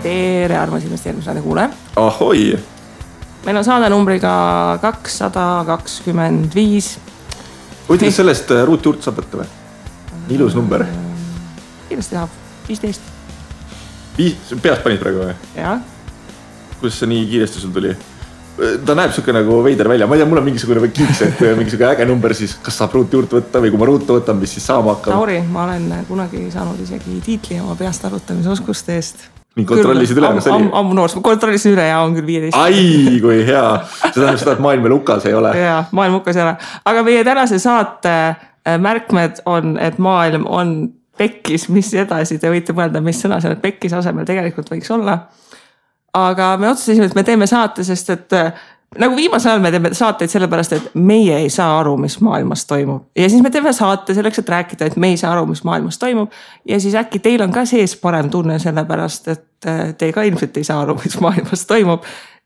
tere armas investeerimissaade kuule. Ahoi! Meil on saade numbriga 225. Kuidas sellest ruutjuurt saab võtta või? Ilus number. Kiiresti tahab, 15. Peast panid praegu või? Jaa. Kuidas see nii kiiresti sul tuli? Ta näeb siuke nagu veider välja. Ma ei tea, mul on mingisugune kiiks, et mingisugune äge number siis, kas saab ruutjuurt võtta või kui ma ruutu võtan, mis siis saama hakkab. Lauri, ma olen kunagi saanud isegi tiitli oma peast arvutamise oskuste eest. Nii kontrollisid üle, kas oli? Ammu noors, ma kontrollisin üle ja on küll 15. Ai, kui hea. See tähendab seda, et maailm veel hukas ei ole. Jaa, maailm hukas ei ole. Aga meie tänase saate märkmed on, et maailm on pekkis, mis edasi. Te võite mõelda, mis sõna seal pekkis asemel tegelikult võiks olla. Aga me otsustasime, et me teeme saate, sest et nagu viimasel ajal me teeme saateid sellepärast, et meie ei saa aru, mis maailmas toimub. Ja siis me teeme saate selleks, et rääkida, et me ei saa aru, mis maailmas toimub. Ja siis äkki teil on ka sees parem tunne sellepärast, et te ka ilmselt ei saa aru, mis maailmas toimub.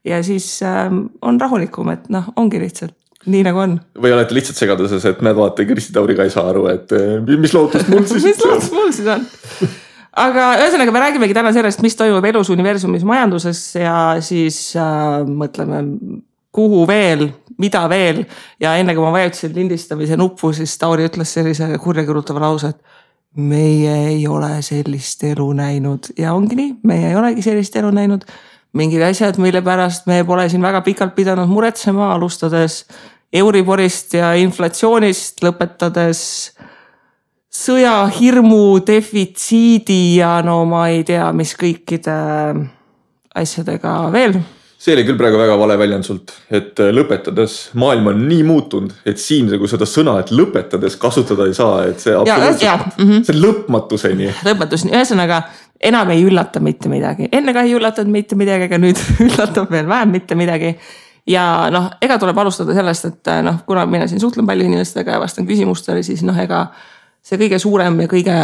Ja siis on rahulikum, et ongi lihtsalt nii nagu on. Või olete lihtsalt segaduses, et näed vaata, Kristi Tauri ka ei saa aru, et mis lootust mul siis mis lootust mul siis on? Aga ühesõnaga me räägimegi täna sellest, mis toimub elus, universumis, majanduses ja siis mõtleme, kuhu veel, mida veel. Ja enne kui ma vajutasin lindistamise nuppu, siis Tauri ütles sellise kurjakirutava lause, et meie ei ole sellist elu näinud. Ja ongi nii, meie ei olegi sellist elu näinud. Mingid asjad, mille pärast me pole siin väga pikalt pidanud muretsema, alustades Euriborist ja inflatsioonist, lõpetades sõja, hirmu, defitsiidi ja no ma ei tea, mis kõikide asjadega veel. See oli küll praegu väga vale väljend sult, et lõpetades maailm on nii muutunud, et siin kui seda sõna, et lõpetades kasutada ei saa, et see absoluutselt, see lõpmatuseni. Lõpmatuseni, ühesõnaga enam ei üllata mitte midagi. Enne ka ei üllatanud mitte midagi, aga nüüd üllatab veel vähem mitte midagi. Ja ega tuleb alustada sellest, et kuna mina siin suhtlen palju inimestega ja vastan küsimustele, siis ega see kõige suurem ja kõige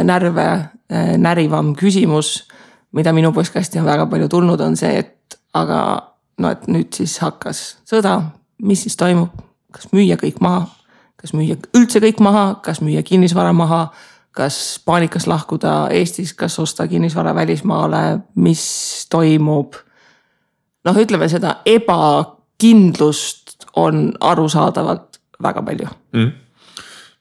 närve närivam küsimus, mida minu postkasti on väga palju tulnud, on see, et et nüüd siis hakkas sõda, mis siis toimub, kas müüa kõik maha, kas müüa üldse kõik maha, kas müüa kinnisvara maha, kas paanikas lahkuda Eestis, kas osta kinnisvara välismaale, mis toimub. Ütleme seda ebakindlust on arusaadavalt väga palju.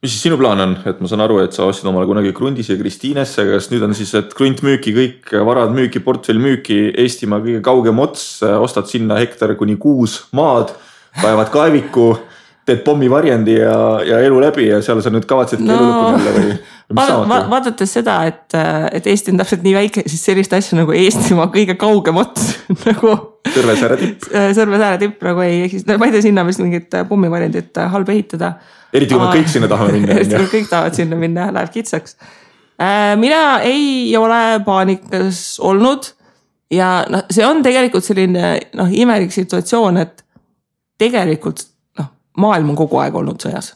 Mis siis sinu plaan on? Et ma saan aru, et sa ostsid omale kunagi Grundis ja Kristiinesse, kas nüüd on siis, et Grunt müüki, kõik varad müüki, portfell müüki, Eestimaa kõige kaugem ots, ostad sinna hektar kuni 6 maad, kaevad kaeviku, teed pommi varjendi ja elu läbi ja seal sa nüüd kavatsid elu lõpuni jälle või mis saamata? Vaadates seda, et Eesti on täpselt nii väike, siis sellist asja nagu Eestimaa kõige kaugem ots nagu Sõrvesääre tipp nagu ei eksist. Ma ei tea sinna vist mingit pommi varjendit halb ehitada. Eriti kui me kõik sinna tahame minna. Eriti kui kõik tahavad sinna minna, läheb kitsaks. Mina ei ole paanikas olnud ja see on tegelikult selline imelik situatsioon, et tegelikult maailm on kogu aeg olnud sõjas.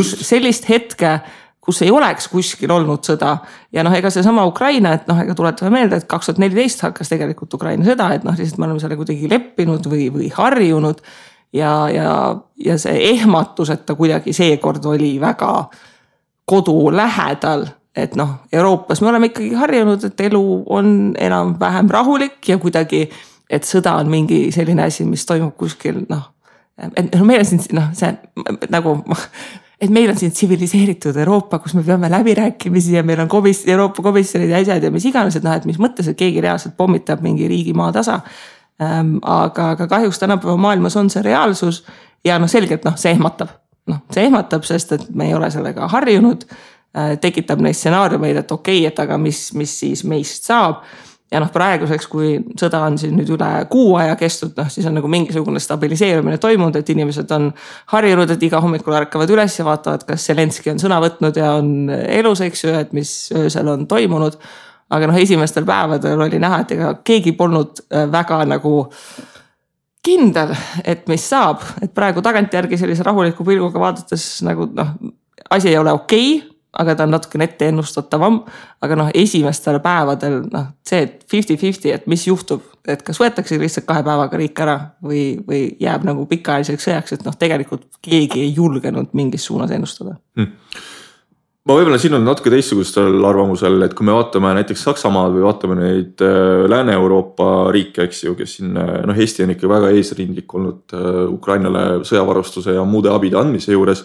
Sellist hetke, kus ei oleks kuskil olnud sõda ja ega see sama Ukraina, et ega tuletame meelde, et 2014 hakkas tegelikult Ukraina sõda, et lihtsalt me oleme selle kuidagi leppinud või harjunud ja see ehmatus, et ta kuidagi seekord oli väga kodu lähedal, et Euroopas me oleme ikkagi harjunud, et elu on enam vähem rahulik ja kuidagi, et sõda on mingi selline asi, mis toimub kuskil, et meil on siin see nagu et meil on siin tsiviliseeritud Euroopa, kus me peame läbirääkimisi ja meil on Euroopa komisjonid ja asjad ja mis iganes, et mis mõttes, et keegi reaalselt pommitab mingi riigi maa tasa. Aga kahjuks tänapäeva maailmas on see reaalsus ja selgelt see ehmatab. See ehmatab, sest et me ei ole sellega harjunud, tekitab neid stsenaariumeid, et okei, et aga mis siis meist saab. Ja praeguseks, kui sõda on siin nüüd üle 6 aja kestud, siis on nagu mingisugune stabiliseerumine toimunud, et inimesed on harjunud, et iga hommikul ärkavad üles ja vaatavad, kas Zelenski on sõna võtnud ja on elus, eks ju, et mis öösel on toimunud. Aga esimestel päevadel oli näha, et ega keegi polnud väga nagu kindel, et mis saab. Et praegu tagantjärgi sellise rahuliku pilguga vaadates nagu asi ei ole okei, aga ta on natuke ette ennustatavam, aga esimestel päevadel see 50-50, et mis juhtub, et kas võetakse lihtsalt 2 päevaga riik ära või jääb nagu pikaajaliseks sõjaks, et tegelikult keegi ei julgenud mingis suunas ennustada. ma võib-olla siin on natuke teistsugustel arvamusel, et kui me vaatame näiteks Saksamaad või vaatame neid Lääne-Euroopa riike, eks ju, kes siin, Eesti on ikka väga eesrindlik olnud Ukrainale sõjavarustuse ja muude abide andmise juures.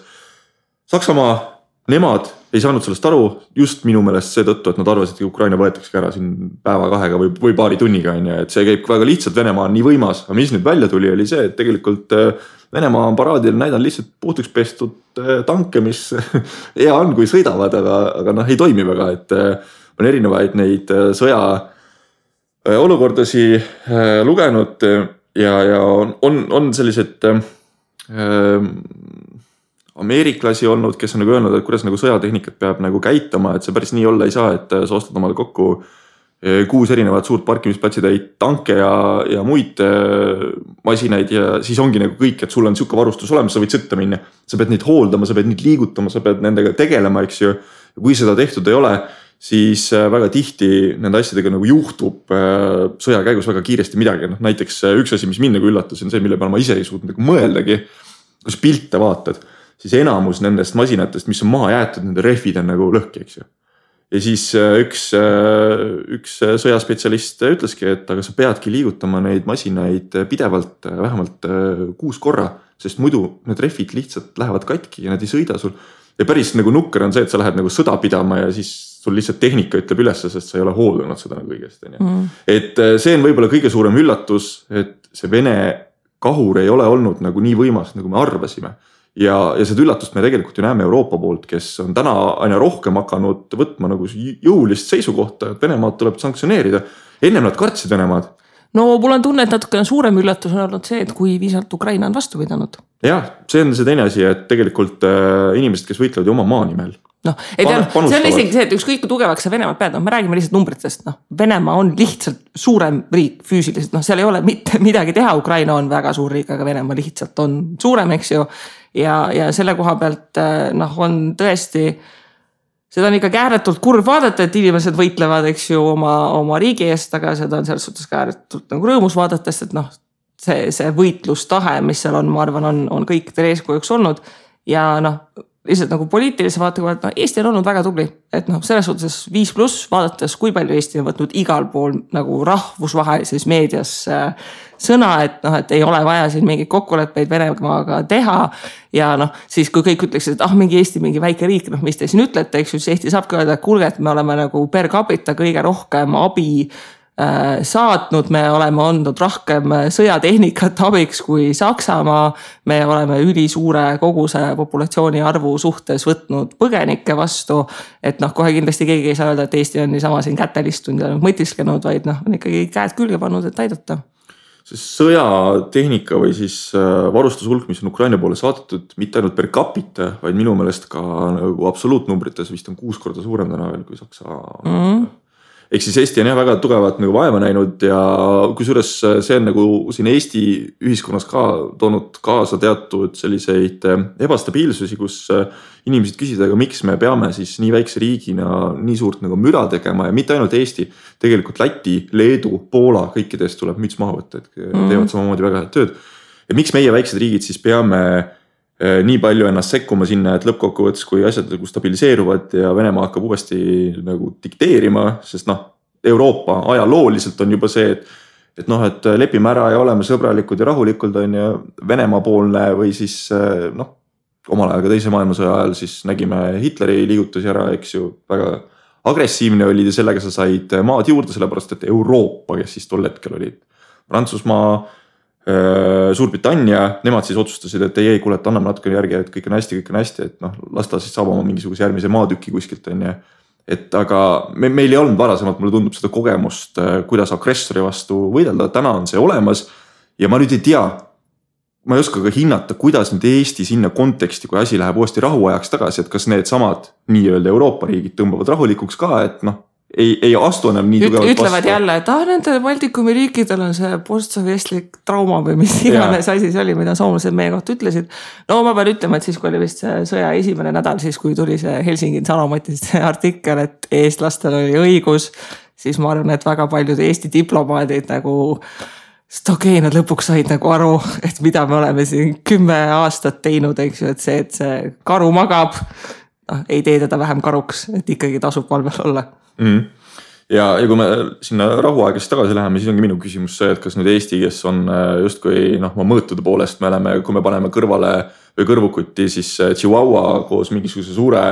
Saksamaa, nemad ei saanud sellest aru just minu meelest seetõttu, et nad arvasid, et Ukraina võetakse ära siin päeva-kahega või paari tunniga, et see käib väga lihtsalt, Venemaa on nii võimas, aga mis nüüd välja tuli, oli see, et tegelikult Venemaa on paraadil näidanud lihtsalt puhtuks pestud tanke, mis hea on, kui sõidavad, aga ei toimi väga, et on erinevaid neid sõja olukordasi lugenud ja on sellised ameeriklasi olnud, kes on nagu öelnud, et kuidas nagu sõjatehnikat peab nagu käitama, et see päris nii olla ei saa, et sa ostad omale kokku 6 erinevat suurt parkimisplatsi tanke ja muid masinaid ja siis ongi nagu kõik, et sul on siuke varustus olemas, sa võid sõtta minna. Sa pead neid hooldama, sa pead neid liigutama, sa pead nendega tegelema, eks ju. Ja kui seda tehtud ei ole, siis väga tihti nende asjadega nagu juhtub sõja käigus väga kiiresti midagi. Näiteks üks asi, mis mind nagu üllatas, on see, mille peale ma ise ei suutnud nagu mõeldagi. Kus pilte vaatad, siis enamus nendest masinatest, mis on maha jäetud, nende rehvid on nagu lõhki, eks ju. Ja siis üks sõjaspetsialist ütleski, et aga sa peadki liigutama neid masinaid pidevalt vähemalt 6 korra, sest muidu need rehvid lihtsalt lähevad katki ja nad ei sõida sul. Ja päris nagu nukker on see, et sa lähed nagu sõda pidama ja siis sul lihtsalt tehnika ütleb üles, sest sa ei ole hooldanud seda nagu õigesti. Et see on võib-olla kõige suurem üllatus, et see Vene kahur ei ole olnud nagu nii võimas, nagu me arvasime. Ja seda üllatust me tegelikult ju näeme Euroopa poolt, kes on täna aina rohkem hakanud võtma nagu jõulist seisukohta, et Venemaad tuleb sanktsioneerida. Ennem nad kartsid Venemaad. No mul on tunne, et natuke suurem üllatus on olnud see, et kui viisalt Ukraina on vastu pidanud. Jah, see on see teine asi, et tegelikult inimesed, kes võitlevad ju oma maa nimel. See on isegi see, et ükskõik kui tugevaks sa Venemaad pead, me räägime lihtsalt numbritest, Venemaa on lihtsalt suurem riik füüsiliselt, seal ei ole mitte midagi teha, Ukraina on väga suur riik, aga Venemaa lihtsalt on suurem, eks ju, ja selle koha pealt on tõesti, seda on ikka ääretult kurb vaadata, et inimesed võitlevad, eks ju, oma riigi eest, aga seda on selles suhtes ääretult nagu rõõmus vaadates, et see võitlustahe, mis seal on, ma arvan, on kõikidel eeskujuks olnud ja lihtsalt nagu poliitilise vaatega, Eesti on olnud väga tubli, et selles suhtes 5+, vaadates, kui palju Eesti on võtnud igal pool nagu rahvusvahelises meedias sõna, et ei ole vaja siin mingeid kokkuleppeid Venemaaga teha ja siis kui kõik ütleksid, et mingi Eesti, mingi väike riik, mis te siin ütlete, eks ju, siis Eesti saabki öelda, et kuulge, et me oleme nagu per capita kõige rohkem abi saatnud, me oleme olnud rohkem sõjatehnikat abiks kui Saksamaa, me oleme ülisuure koguse populatsiooni arvu suhtes võtnud põgenikke vastu, et kohe kindlasti keegi ei saa öelda, et Eesti on niisama siin kätelistunud ja mõtiskenud, vaid on ikkagi käed külge pannud, et aidata. See sõjatehnika või siis varustushulk, mis on Ukraina poole saadetud, mitte ainult per capita, vaid minu meelest ka nagu absoluutnumbrites vist on 6 korda suurem täna veel kui Saksa. Ehk siis Eesti on väga tugevat nagu vaeva näinud ja kusjuures see on nagu siin Eesti ühiskonnas ka toonud kaasa teatud selliseid ebastabiilsusi, kus inimesed küsivad, aga miks me peame siis nii väikse riigina nii suurt nagu müra tegema ja mitte ainult Eesti, tegelikult Läti, Leedu, Poola, kõikidest tuleb müts maha võtta, et teevad samamoodi väga head tööd. Ja miks meie väiksed riigid siis peame nii palju ennast sekkuma sinna, et lõppkokkuvõttes, kui asjad nagu stabiliseeruvad ja Venemaa hakkab uuesti nagu dikteerima, sest Euroopa ajalooliselt on juba see, et lepime ära ja oleme sõbralikud ja rahulikud on ja Venemaa poolne või siis omal ajal ka teise maailmasõja ajal siis nägime Hitleri liigutusi ära, eks ju, väga agressiivne oli ja sellega sa said maad juurde, sellepärast et Euroopa, kes siis tol hetkel olid Prantsusmaa, Suurbritannia, nemad siis otsustasid, et ei, kuule, et anname natuke järgi, et kõik on hästi, et las ta siis saab oma mingisuguse järgmise maatüki kuskilt on ja et aga meil ei olnud varasemalt, mulle tundub seda kogemust, kuidas agressori vastu võidelda, täna on see olemas ja ma nüüd ei tea, ma ei oska ka hinnata, kuidas nüüd Eesti sinna konteksti, kui asi läheb uuesti rahuajaks tagasi, et kas need samad nii-öelda Euroopa riigid tõmbavad rahulikuks ka, et ei astu enam nii tugevalt vastu. Ütlevad jälle, et nende Baltikumi riikidel on see postsovjetlik trauma või mis iganes asi see oli, mida soomlased meie kohta ütlesid. No ma pean ütlema, et siis kui oli vist see sõja esimene nädal, siis kui tuli see Helsingi Sanomatist artikkel, et eestlastel oli õigus, siis ma arvan, et väga paljud Eesti diplomaadid nagu nad lõpuks said nagu aru, et mida me oleme siin 10 aastat teinud, eks ju, et see karu magab ei tee teda vähem karuks, et ikkagi tasub valvel olla. Ja kui me sinna rahuaegast tagasi läheme, siis ongi minu küsimus see, et kas nüüd Eesti, kes on justkui mõõtude poolest, me oleme, kui me paneme kõrvale või kõrvukuti, siis Chihuahua koos mingisuguse suure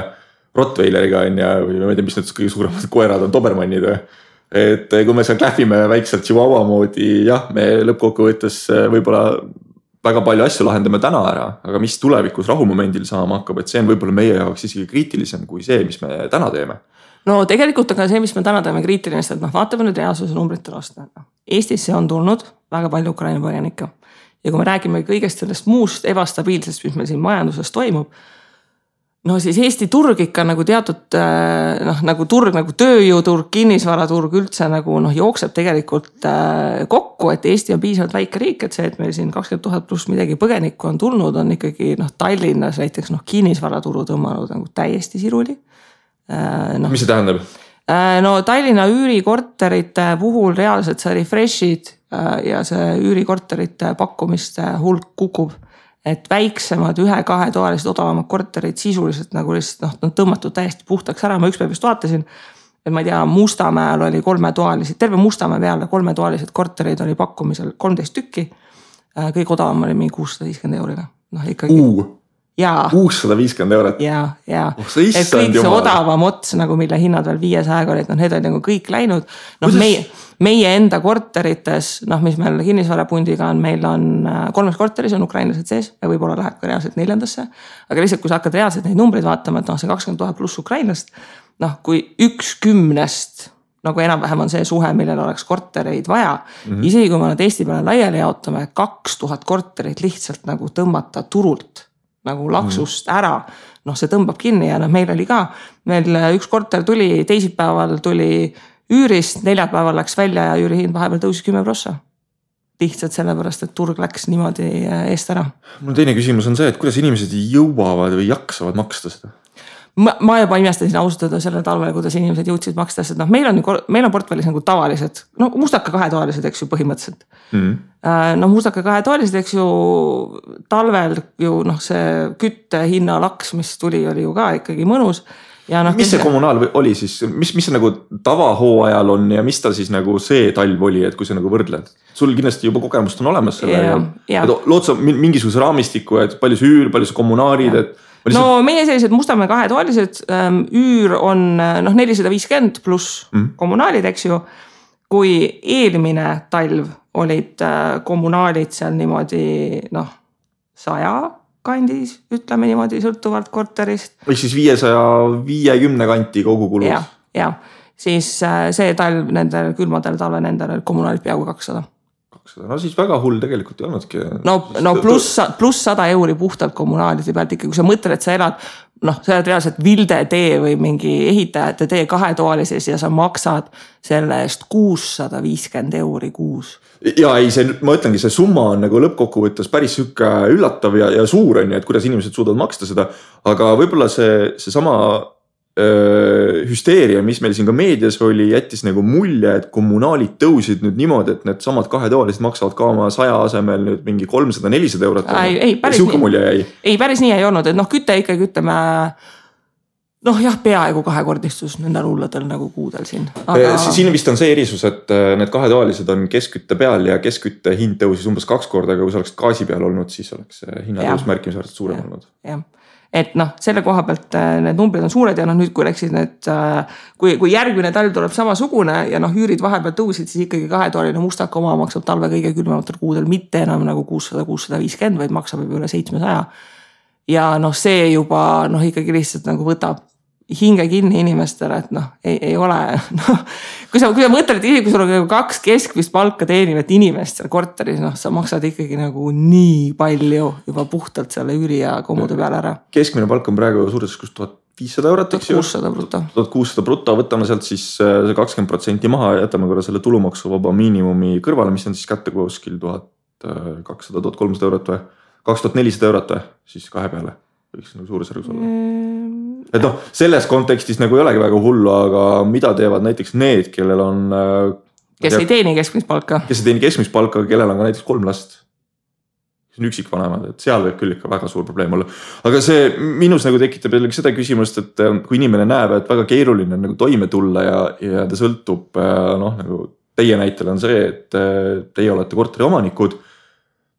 Rottweileriga on ja, või ma ei tea, mis need kõige suuremad koerad on, Dobermannid või. Et kui me seal klähvime väikselt Chihuahua moodi, jah, me lõppkokkuvõttes võib-olla väga palju asju lahendame täna ära, aga mis tulevikus rahumomendil saama hakkab, et see on võib-olla meie jaoks isegi kriitilisem kui see, mis me täna teeme. No tegelikult aga see, mis me täna teeme kriitiline, et vaatame nüüd reaalsuse numbritel aasta. Eestisse on tulnud väga palju Ukraina põgenikke. Ja kui me räägime kõigest sellest muust ebastabiilsest, mis meil siin majanduses toimub, no siis Eesti turg ikka nagu teatud nagu turg, nagu tööjõuturg, kinnisvaraturg üldse nagu jookseb tegelikult kokku, et Eesti on piisavalt väike riik, et see, et meil siin 20 000 pluss midagi põgenikku on tulnud, on ikkagi Tallinnas näiteks kinnisvaraturu tõmmanud nagu täiesti siruli. Mis see tähendab? No Tallinna üürikorterite puhul reaalselt sa refreshid ja see üürikorterite pakkumiste hulk kukub. Et väiksemad 1-2 toalised odavamad korterid sisuliselt nagu lihtsalt on tõmmatud täiesti puhtaks ära. Ma ükspäev just vaatasin, et ma ei tea, Mustamäel oli 3 toalised, terve Mustamäe peale 3 toalised korterid oli pakkumisel 13 tükki. Kõik odavam oli mingi 650 €. Ikkagi. Jaa. 650 €? Jaa. Et kõik see odavam ots, nagu mille hinnad veel 500 olid, need olid nagu kõik läinud. Meie enda korterites, mis meil kinnisvarapundiga on, meil on 3 korteris on ukrainlased sees ja võib-olla läheb ka reaalselt 4. Aga lihtsalt, kui sa hakkad reaalselt neid numbreid vaatama, et see 20 000 pluss ukrainlast, kui 1/10 nagu enam-vähem on see suhe, millel oleks kortereid vaja. Isegi kui me nad Eesti peale laiali jaotame, 2000 korterit lihtsalt nagu tõmmata turult nagu laksust ära, see tõmbab kinni ja meil oli ka, meil üks korter tuli, teisipäeval tuli üürist, neljapäeval läks välja ja üürihind vahepeal tõusis 10%. Lihtsalt sellepärast, et turg läks niimoodi eest ära. Mul teine küsimus on see, et kuidas inimesed jõuavad või jaksavad maksta seda? Ma juba imestasin austada selle talvele, kuidas inimesed jõudsid maksta, sest meil on portfellis nagu tavalised, mustaka 2 toalised, eks ju, põhimõtteliselt. Mustaka 2 toalised, eks ju, talvel ju see kütte hinna laks, mis tuli, oli ju ka ikkagi mõnus. Ja mis see kommunaal oli siis, mis see nagu tavahooajal on ja mis ta siis nagu see talv oli, et kui sa nagu võrdled? Sul kindlasti juba kogemust on olemas selle ja lood sa mingisuguse raamistiku, et palju see üür, palju see kommunaalid, et no meie sellised Mustamäe 2 toalised üür on 450 pluss kommunaalid, eks ju. Kui eelmine talv olid kommunaalid seal niimoodi 100 kandis, ütleme niimoodi sõltuvalt korterist. Või siis 550 kanti kogu kulud. Ja, siis see talv nendel külmadel talve nendel kommunaalid peaaegu 200. No siis väga hull tegelikult ei olnudki. No pluss 100 € puhtalt kommunaalide pealt ikka, kui sa mõtled, et sa elad, sa oled reaalselt Vilde tee või mingi ehitajate tee 2 toalises ja sa maksad selle eest 650 € kuus. Ja ei, ma ütlengi, see summa on nagu lõppkokkuvõttes päris sükke üllatav ja suur on, et kuidas inimesed suudavad maksta seda, aga võib-olla see sama hüsteeria, mis meil siin ka meedias oli, jättis nagu mulje, et kommunaalid tõusid nüüd niimoodi, et need samad 2 toalised maksavad ka oma 100 asemel nüüd mingi 300-400 €. Ei, päris nii ei olnud, et küte ikkagi ütleme, peaaegu 2-kordistus nendel hulladel nagu kuudel siin. Siin vist on see erisus, et need 2 toalised on keskkütte peal ja keskkütte hind tõusis umbes 2 korda, aga kui sa oleks gaasi peal olnud, siis oleks hinnatõus märkimisväärselt suurem olnud. Et selle koha pealt need numbrid on suured ja nüüd kui läksid need, kui järgmine talv tuleb samasugune ja üürid vahepeal tõusid, siis ikkagi 2-toaline mustaka oma maksab talve kõige külmematel kuudel mitte enam nagu 600-650, vaid maksab juba üle 700. Ja see juba ikkagi lihtsalt nagu võtab hinge kinni inimestele, et ei ole, kui sa mõtled, et kui sul on 2 keskmist palka teenivat inimest seal korteris, sa maksad ikkagi nagu nii palju juba puhtalt selle üüri ja kommude peale ära. Keskmine palk on praegu suures 1500 €, eks ju? 1600 bruto. 1600 bruto, võtame sealt siis see 20% maha ja jätame korra selle tulumaksuvaba miinimumi kõrvale, mis on siis kätte kuskil 1200-1300 € või 2400 € või siis 2 peale. Võiks nagu suurusjärgus olla. Et selles kontekstis nagu ei olegi väga hullu, aga mida teevad näiteks need, kellel on kes ei teeni keskmist palka. Kes ei teeni keskmist palka, kellel on ka näiteks 3 last. see on üksikvanemad, et seal võib küll ikka väga suur probleem olla. Aga see minus nagu tekitab jällegi seda küsimust, et kui inimene näeb, et väga keeruline on nagu toime tulla ja ta sõltub, noh nagu teie näitel on see, et teie olete korteri omanikud,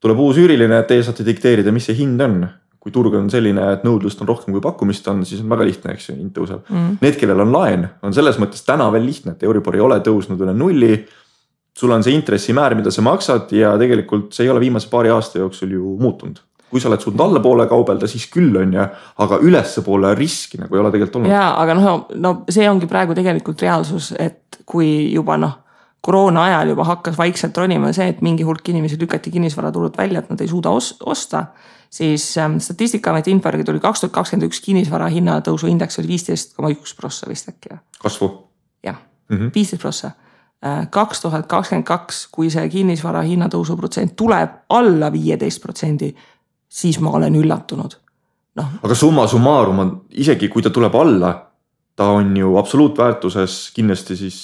tuleb uus üüriline, et teie saate dikteerida, mis see hind on. Kui turg on selline, et nõudlust on rohkem kui pakkumist on, siis on väga lihtne, eks hind tõuseb. Need, kellel on laen, on selles mõttes täna veel lihtne, et Euribor ei ole tõusnud üle nulli. Sul on see intressimäär, mida sa maksad ja tegelikult see ei ole viimase paari aasta jooksul ju muutunud. Kui sa oled suutnud alla poole kaubelda, siis küll on ja, aga ülesse poole riski nagu ei ole tegelikult olnud. Jaa, aga no see ongi praegu tegelikult reaalsus, et kui juba koroona ajal juba hakkas vaikselt ronima see, et mingi hulk inimesi lükati kinnisvaraturult välja, et nad ei suuda osta, siis Statistikaameti info tuli 2021 kinnisvara hinnatõusu indeks oli 15,1% vist äkki. Kasvu? Jah, 15%. 2022, kui see kinnisvara hinnatõusu protsent tuleb alla 15%, siis ma olen üllatunud. No. Aga summa summarum on, isegi kui ta tuleb alla, ta on ju absoluutväärtuses kindlasti siis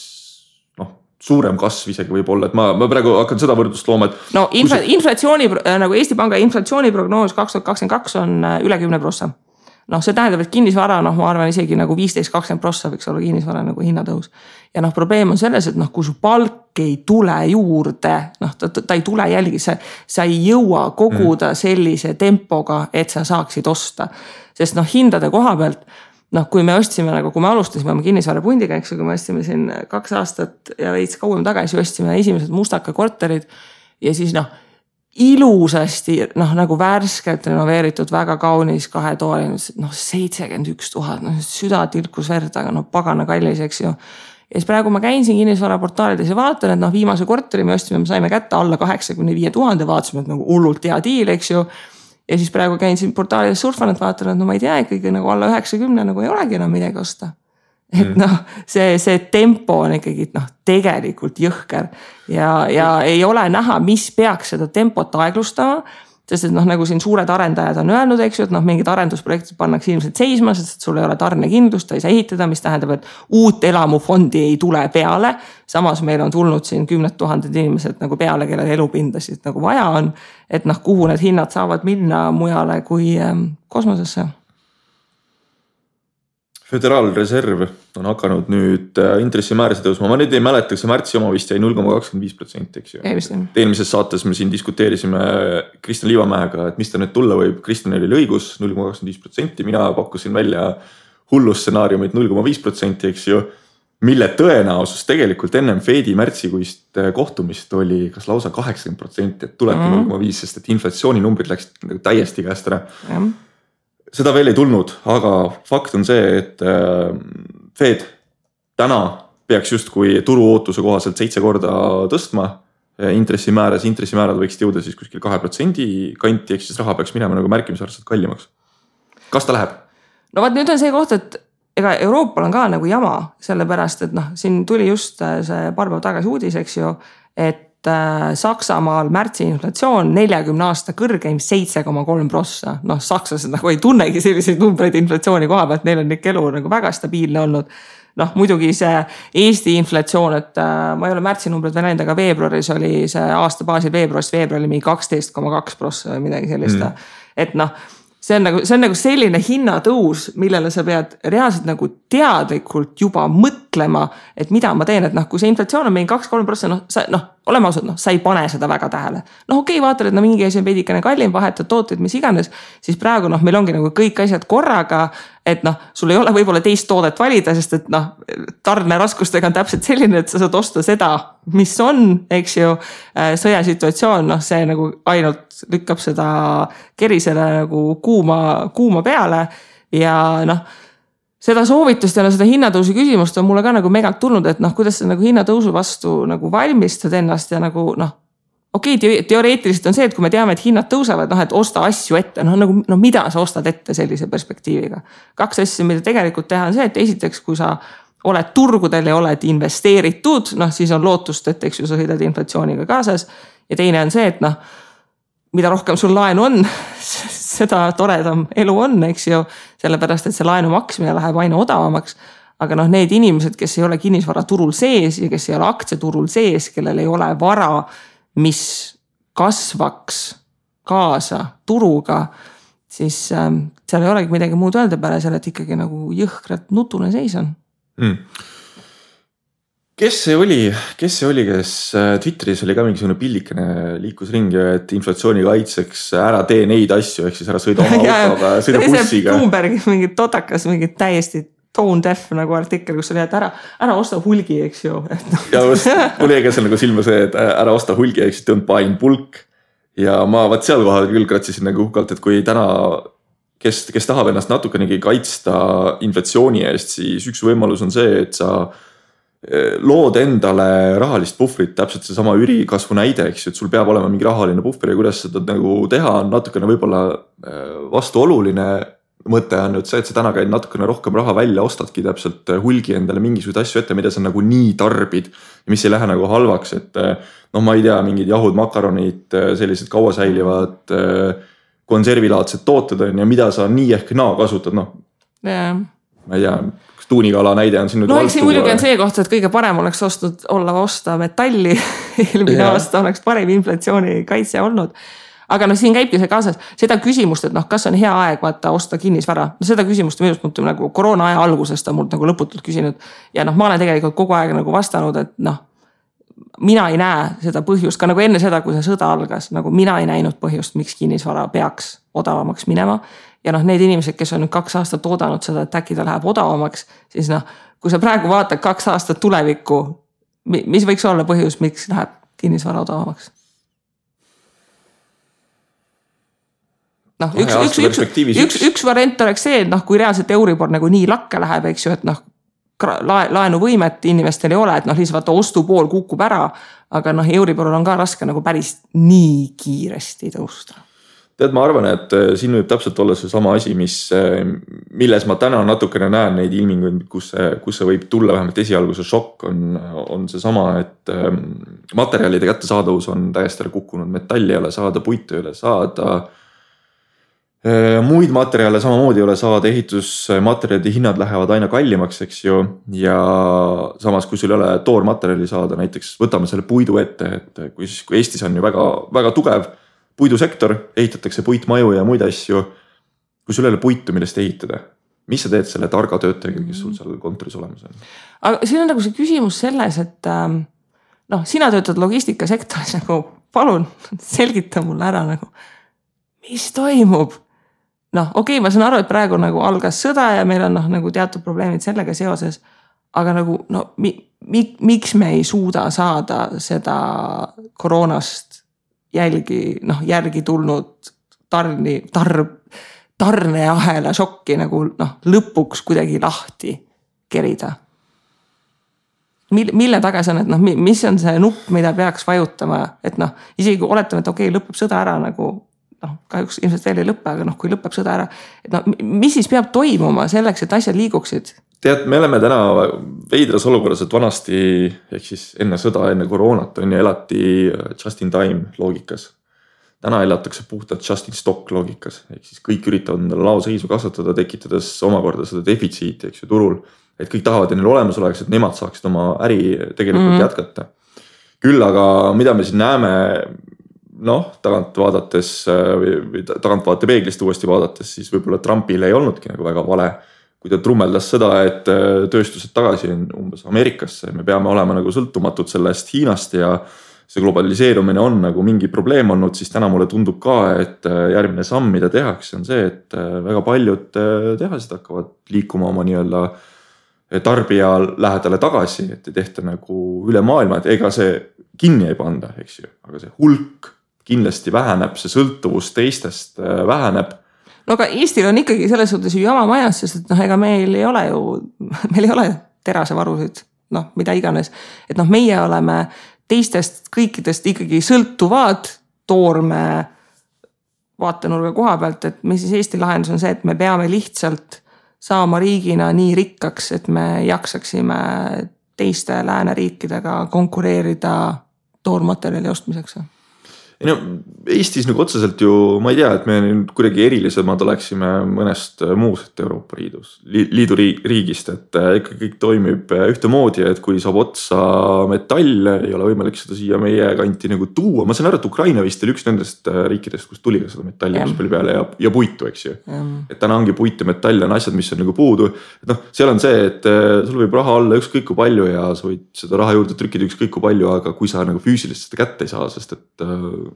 suurem kasv isegi võib olla, et ma praegu hakkan seda võrdlust looma, et... No inflatsiooni, nagu Eesti Panga inflatsiooniprognoos 2022 on üle 10%. See tähendab, et kinnisvara, ma arvan isegi nagu 15-20% võiks olla kinnisvara nagu hinnatõus. Ja probleem on selles, et kui su palk ei tule juurde, ta ei tule jälgi, sa ei jõua koguda sellise tempoga, et sa saaksid osta. Sest hindade koha pealt, kui me ostsime, kui me alustasime oma kinnisvara pundiga, eks, kui me ostsime siin 2 aastat ja veits kauem tagasi, ostsime esimesed Mustaka korterid ja siis ilusasti, nagu värskelt renoveeritud, väga kaunis 2 tooli, 71 000, süda tilkus verd, aga pagana kallis, eks ju. Ja siis praegu ma käin siin kinnisvara portaalides ja vaatan, et viimase korteri me ostsime, me saime kätte alla 85 000, vaatasime, et hullult hea diil, eks ju. Ja siis praegu käin siin portaalides surfan, et vaatan, et ma ei tea, ikkagi alla 90 ei olegi enam midagi osta. Et see tempo on ikkagi tegelikult jõhker ja ei ole näha, mis peaks seda tempot aeglustama, sest et nagu siin suured arendajad on öelnud, eks ju, et mingid arendusprojektid pannakse ilmselt seisma, sest et sul ei ole tarnekindlust, ta ei saa ehitada, mis tähendab, et uut elamufondi ei tule peale. Samas meil on tulnud siin 10 000 inimesed nagu peale, kellel elupindasid nagu vaja on, et kuhu need hinnad saavad minna mujale kui kosmosesse. Föderaalreserv on hakanud nüüd intressimäärasid tõusma. Ma nüüd ei mäleta, see märtsi oma vist jäi 0,25%, eks ju. Eelmises saates me siin diskuteerisime Kristjan Liivamäega, et mis ta nüüd tulla võib. Kristjan oli õigus 0,25%, mina pakkusin välja hullustsenaariumit 0,5%, eks ju, mille tõenäosus tegelikult ennem Fedi märtsikuist kohtumist oli kas lausa 80%, et tulebki 0,5%, sest et inflatsiooninumbrid läksid täiesti käest ära. Seda veel ei tulnud, aga fakt on see, et Fed täna peaks just kui turu ootuse kohaselt 7 korda tõstma intressimäärad võiksid jõuda siis kuskil 2% kanti, eks siis raha peaks minema nagu märkimisväärselt kallimaks. Kas ta läheb? No vaat nüüd on see koht, et ega Euroopal on ka nagu jama, sellepärast, et siin tuli just see paar päeva tagasi uudis, eks ju, et Saksamaal märtsi inflatsioon 40 aasta kõrgeim 7,3%. Sakslased nagu ei tunnegi selliseid numbreid inflatsiooni koha pealt, neil on ikka elu nagu väga stabiilne olnud. Muidugi see Eesti inflatsioon, et ma ei ole märtsi numbrid veel näinud, aga veebruaris oli see aasta baasil veebruarist veebruari mingi 12,2% või midagi sellist. Et see on nagu selline hinnatõus, millele sa pead reaalselt nagu teadlikult juba mõtlema, et mida ma teen, et kui see inflatsioon on mingi 2-3%, oleme ausad, sa ei pane seda väga tähele. Okei, vaatad, et mingi asi on veidikene kallim, vahetad tooteid, mis iganes, siis praegu meil ongi nagu kõik asjad korraga, et sul ei ole võib-olla teist toodet valida, sest et tarneraskustega on täpselt selline, et sa saad osta seda, mis on, eks ju, sõjasituatsioon, see nagu ainult lükkab seda kerisele nagu kuuma peale ja seda soovitust ja seda hinnatõusu küsimust on mulle ka nagu megalt tulnud, et kuidas sa nagu hinnatõusu vastu nagu valmistad ennast ja nagu okei, teoreetiliselt on see, et kui me teame, et hinnad tõusevad, et osta asju ette, mida sa ostad ette sellise perspektiiviga. 2 asja, mida tegelikult teha on see, et esiteks, kui sa oled turgudel ja oled investeeritud, siis on lootust, et eks ju sa sõidad inflatsiooniga kaasas ja teine on see, et mida rohkem sul laenu on, seda toredam elu on, eks ju, sellepärast, et see laenu maksmine läheb aina odavamaks. Aga need inimesed, kes ei ole kinnisvaraturul sees ja kes ei ole aktsiaturul sees, kellel ei ole vara, mis kasvaks kaasa turuga, siis seal ei olegi midagi muud öelda peale selle, et ikkagi nagu jõhkralt nutune seis on. Kes see oli, kes Twitteris oli ka mingisugune pillikene liikus ringi, et inflatsiooni kaitseks ära tee neid asju, ehk siis ära sõida oma autoga, sõida bussiga. Bloombergi mingi totakas, mingi täiesti tone deaf nagu artikkel, kus oli, et ära osta hulgi, eks ju. Ja mul jäi ka seal nagu silma see, et ära osta hulgi, eks don't buy in bulk. Ja ma seal kohal küll kratsisin nagu uhkalt, et kui täna, kes tahab ennast natukenegi kaitsta inflatsiooni eest, siis üks võimalus on see, et sa lood endale rahalist puhvrit, täpselt see sama ürikasvu näide, eks ju, et sul peab olema mingi rahaline puhver ja kuidas seda nagu teha on natukene võib-olla vastuoluline mõte on nüüd see, et sa täna käid natukene rohkem raha välja, ostadki täpselt hulgi endale mingisugused asju ette, mida sa nagu nii tarbid ja mis ei lähe nagu halvaks, et ma ei tea, mingid jahud, makaronid, sellised kauasäilivad konservilaadsed tooted on ja mida sa nii ehk naa kasutad, ma ei tea, tuunikala näide on siin nüüd eks siin muidugi on see koht, et kõige parem oleks osta metalli eelmine aasta oleks parem inflatsiooni kaitse olnud. Aga siin käibki see kaasas seda küsimust, et kas on hea aeg vaata osta kinnisvara. Seda küsimust minust mõtleb nagu koroona aja algusest on mult nagu lõputult küsinud. Ja ma olen tegelikult kogu aeg nagu vastanud, et mina ei näe seda põhjust, ka nagu enne seda, kui see sõda algas, nagu mina ei näinud põhjust, miks kinnisvara peaks odavamaks minema. Ja need inimesed, kes on nüüd 2 aastat oodanud seda, et äkki ta läheb odavamaks, siis kui sa praegu vaatad 2 aastat tulevikku, mis võiks olla põhjus, miks läheb kinnisvara odavamaks? Üks variant oleks see, et kui reaalselt Euribor nagu nii lakke läheb, eks ju, et laenuvõimet inimestel ei ole, et lihtsalt vaata ostupool kukub ära, aga Euriboril on ka raske nagu päris nii kiiresti tõusta. Tead, ma arvan, et siin võib täpselt olla see sama asi, milles ma täna natukene näen neid ilminguid, kus see võib tulla vähemalt esialgu see šokk on see sama, et materjalide kättesaadavus on täiesti ära kukkunud, metalli ei ole saada, puitu ei ole saada, muid materjale samamoodi ei ole saada, ehitusmaterjalide hinnad lähevad aina kallimaks, eks ju, ja samas kui sul ei ole toormaterjali saada, näiteks võtame selle puidu ette, et kui Eestis on ju väga, väga tugev puidusektor, ehitatakse puitmaju ja muid asju, kui sul ei ole puitu, millest ehitada, mis sa teed selle targa töötajaga, kes sul seal kontoris olemas on? Aga siin on nagu see küsimus selles, et sina töötad logistikasektoris, nagu palun selgita mulle ära, nagu, mis toimub? Okei, ma saan aru, et praegu nagu algas sõda ja meil on nagu teatud probleemid sellega seoses, aga nagu miks me ei suuda saada seda koroonast järgi tulnud tarneahela šokki nagu lõpuks kuidagi lahti kerida. Mille taga see on, et mis on see nupp, mida peaks vajutama, et isegi kui oletame, et okei, lõpeb sõda ära nagu kahjuks ilmselt veel ei lõppe, aga kui lõpeb sõda ära, et mis siis peab toimuma selleks, et asjad liiguksid? Tead, me oleme täna veidras olukorras, et vanasti, ehk siis enne sõda, enne koroonat elati just in time loogikas. Täna elatakse puhtalt just in stock loogikas, ehk siis kõik üritavad endale laoseisu kasvatada, tekitades omakorda seda defitsiiti, eks ju, turul. Et kõik tahavad, et neil olemas oleks, et nemad saaksid oma äri tegelikult jätkata. Küll aga mida me siin näeme, tagant vaate peeglist uuesti vaadates, siis võib-olla Trumpil ei olnudki nagu väga vale, kui ta trummeldas seda, et tööstused tagasi on umbes Ameerikasse, me peame olema nagu sõltumatud sellest Hiinast ja see globaliseerumine on nagu mingi probleem olnud, siis täna mulle tundub ka, et järgmine samm, mida tehakse, on see, et väga paljud tehased hakkavad liikuma oma nii-öelda tarbija lähedale tagasi, et ei tehta nagu üle maailma, et ega see kinni ei panda, eks ju, aga see hulk kindlasti väheneb, see sõltuvus teistest väheneb. Aga Eestil on ikkagi selles suhtes ju jama majas, sest et ega meil ei ole terasevarusid, mida iganes. Et meie oleme teistest kõikidest ikkagi sõltuvad toorme vaatenurga koha pealt, et mis siis Eesti lahendus on see, et me peame lihtsalt saama riigina nii rikkaks, et me jaksaksime teiste lääneriikidega konkureerida toormaterjali ostmiseks. No, Eestis nagu otseselt ju, ma ei tea, et me kuidagi erilisemad oleksime mõnest muust Euroopa Liidu riigist, et ikka kõik toimib ühtemoodi, et kui saab otsa metall, ei ole võimalik seda siia meie kanti nagu tuua. Ma saan aru, et Ukraina vist oli üks nendest riikidest, kus tuli ka seda metalli palju peale ja puitu, eks ju. Et täna ongi puit ja metall on asjad, mis on nagu puudu. Et noh, seal on see, et sul võib raha olla ükskõik kui palju ja sa võid seda raha juurde trükkida ükskõik kui palju, aga kui sa nagu füüsilist seda kätte ei saa, sest et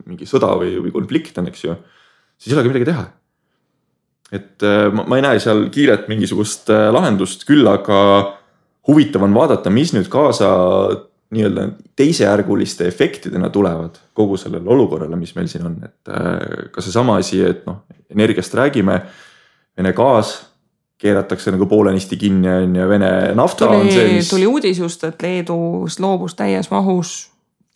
mingi sõda või konflikt on, eks ju, siis ei olegi midagi teha. Et ma ei näe seal kiiret mingisugust lahendust, küll aga huvitav on vaadata, mis nüüd kaasa nii-öelda teisejärguliste efektidena tulevad kogu sellele olukorrale, mis meil siin on. Et ka see sama asi, et noh, energiast räägime, Vene gaas keeratakse nagu poolenisti kinni ja Vene nafta on see, mis... Tuli uudis just, et Leedus loobus täies mahus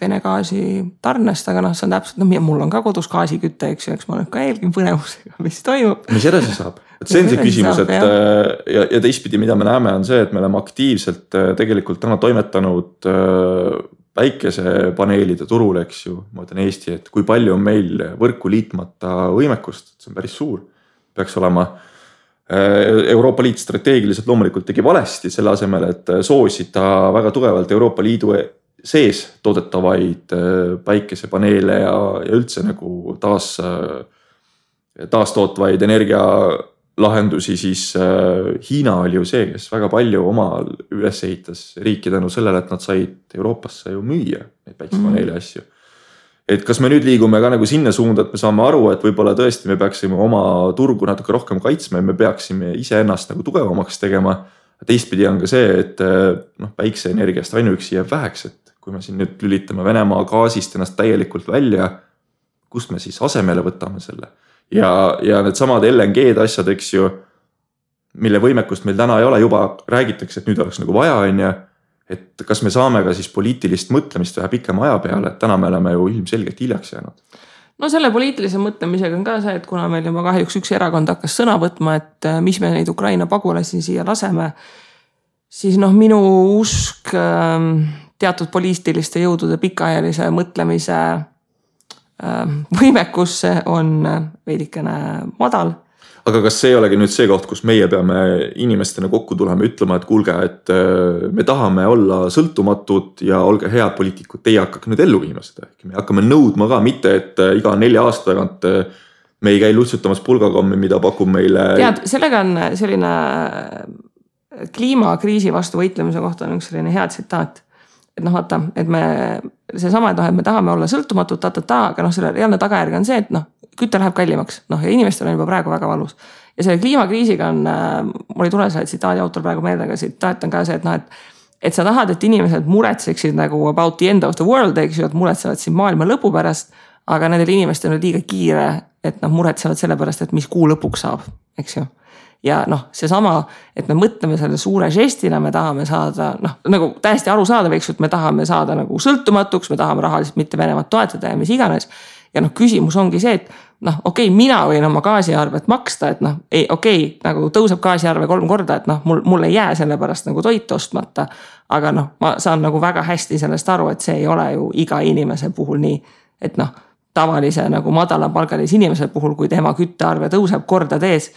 Vene gaasi tarnest, aga noh, see on täpselt, mul on ka kodus gaasikütte, eks ma olen ka eelgin põnevusega, mis toimub. Mis edasi saab? Et see on see küsimus, et ja teistpidi, mida me näeme, on see, et me oleme aktiivselt tegelikult täna toimetanud päikesepaneelide turul, eks ju, ma ütlen Eesti, et kui palju on meil võrku liitmata võimekust, see on päris suur, peaks olema. Euroopa Liit strateegiliselt loomulikult tegi valesti selle asemel, et soosida väga tugevalt Euroopa Liidu sees toodetavaid päikesepaneele ja üldse nagu taastootvaid energialahendusi, siis Hiina oli ju see, kes väga palju omal üles ehitas riiki tänu sellele, et nad said Euroopasse ju müüa neid päikesepaneele asju. Et kas me nüüd liigume ka nagu sinna suunda, et me saame aru, et võib-olla tõesti me peaksime oma turgu natuke rohkem kaitsma ja me peaksime iseennast nagu tugevamaks tegema. Teistpidi on ka see, et päikseenergiast ainuüksi jääb väheks, et kui me siin nüüd lülitame Venemaa gaasist ennast täielikult välja, kust me siis asemele võtame selle. Ja need samad LNG-d asjad, eks ju, mille võimekust meil täna ei ole, juba räägitakse, et nüüd oleks nagu vaja, et kas me saame ka siis poliitilist mõtlemist vähe pikema aja peale, et täna me oleme ju ilmselgelt hiljaks jäänud. No selle poliitilise mõtlemisega on ka see, et kuna meil juba kahjuks üks erakond hakkas sõna võtma, et mis me neid Ukraina pagulasi siia laseme, siis minu usk teatud poliitiliste jõudude pikaajalise mõtlemise võimekusse on veidikene madal. Aga kas see ei olegi nüüd see koht, kus meie peame inimestena kokku tulema ütlema, et kuulge, et me tahame olla sõltumatud ja olge head poliitikud, teie hakkake nüüd ellu viima seda. Me hakkame nõudma ka, mitte et iga 4 aasta tagant me ei käi lutsutamas pulgakommi, mida pakub meile... Tead, sellega on selline kliimakriisi vastu võitlemise kohta on üks selline hea tsitaat. Et vaata, et see sama, et me tahame olla sõltumatud, aga selle reaalne tagajärg on see, et kütte läheb kallimaks, ja inimestel on juba praegu väga valus. Ja selle kliimakriisiga on, mul ei tule selle tsitaadi autor praegu meelde, aga tsitaat on ka see, et sa tahad, et inimesed muretseksid nagu about the end of the world, eks ju, et muretsevad siin maailma lõpu pärast, aga nendel inimestel on liiga kiire, et muretsevad selle pärast, et mis kuu lõpuks saab, eks ju. Ja see sama, et me mõtleme selle suure žestina, me tahame saada, nagu täiesti aru saada, eks ju, et me tahame saada nagu sõltumatuks, me tahame rahaliselt mitte Venemaad toetada ja mis iganes. Ja küsimus ongi see, et okei, mina võin oma gaasiarvet maksta, et nagu tõuseb gaasiarve 3 korda, et mul ei jää selle pärast nagu toit ostmata, aga ma saan nagu väga hästi sellest aru, et see ei ole ju iga inimese puhul nii, et tavalise nagu madalapalgalise inimese puhul, kui tema küttearve tõuseb kordades,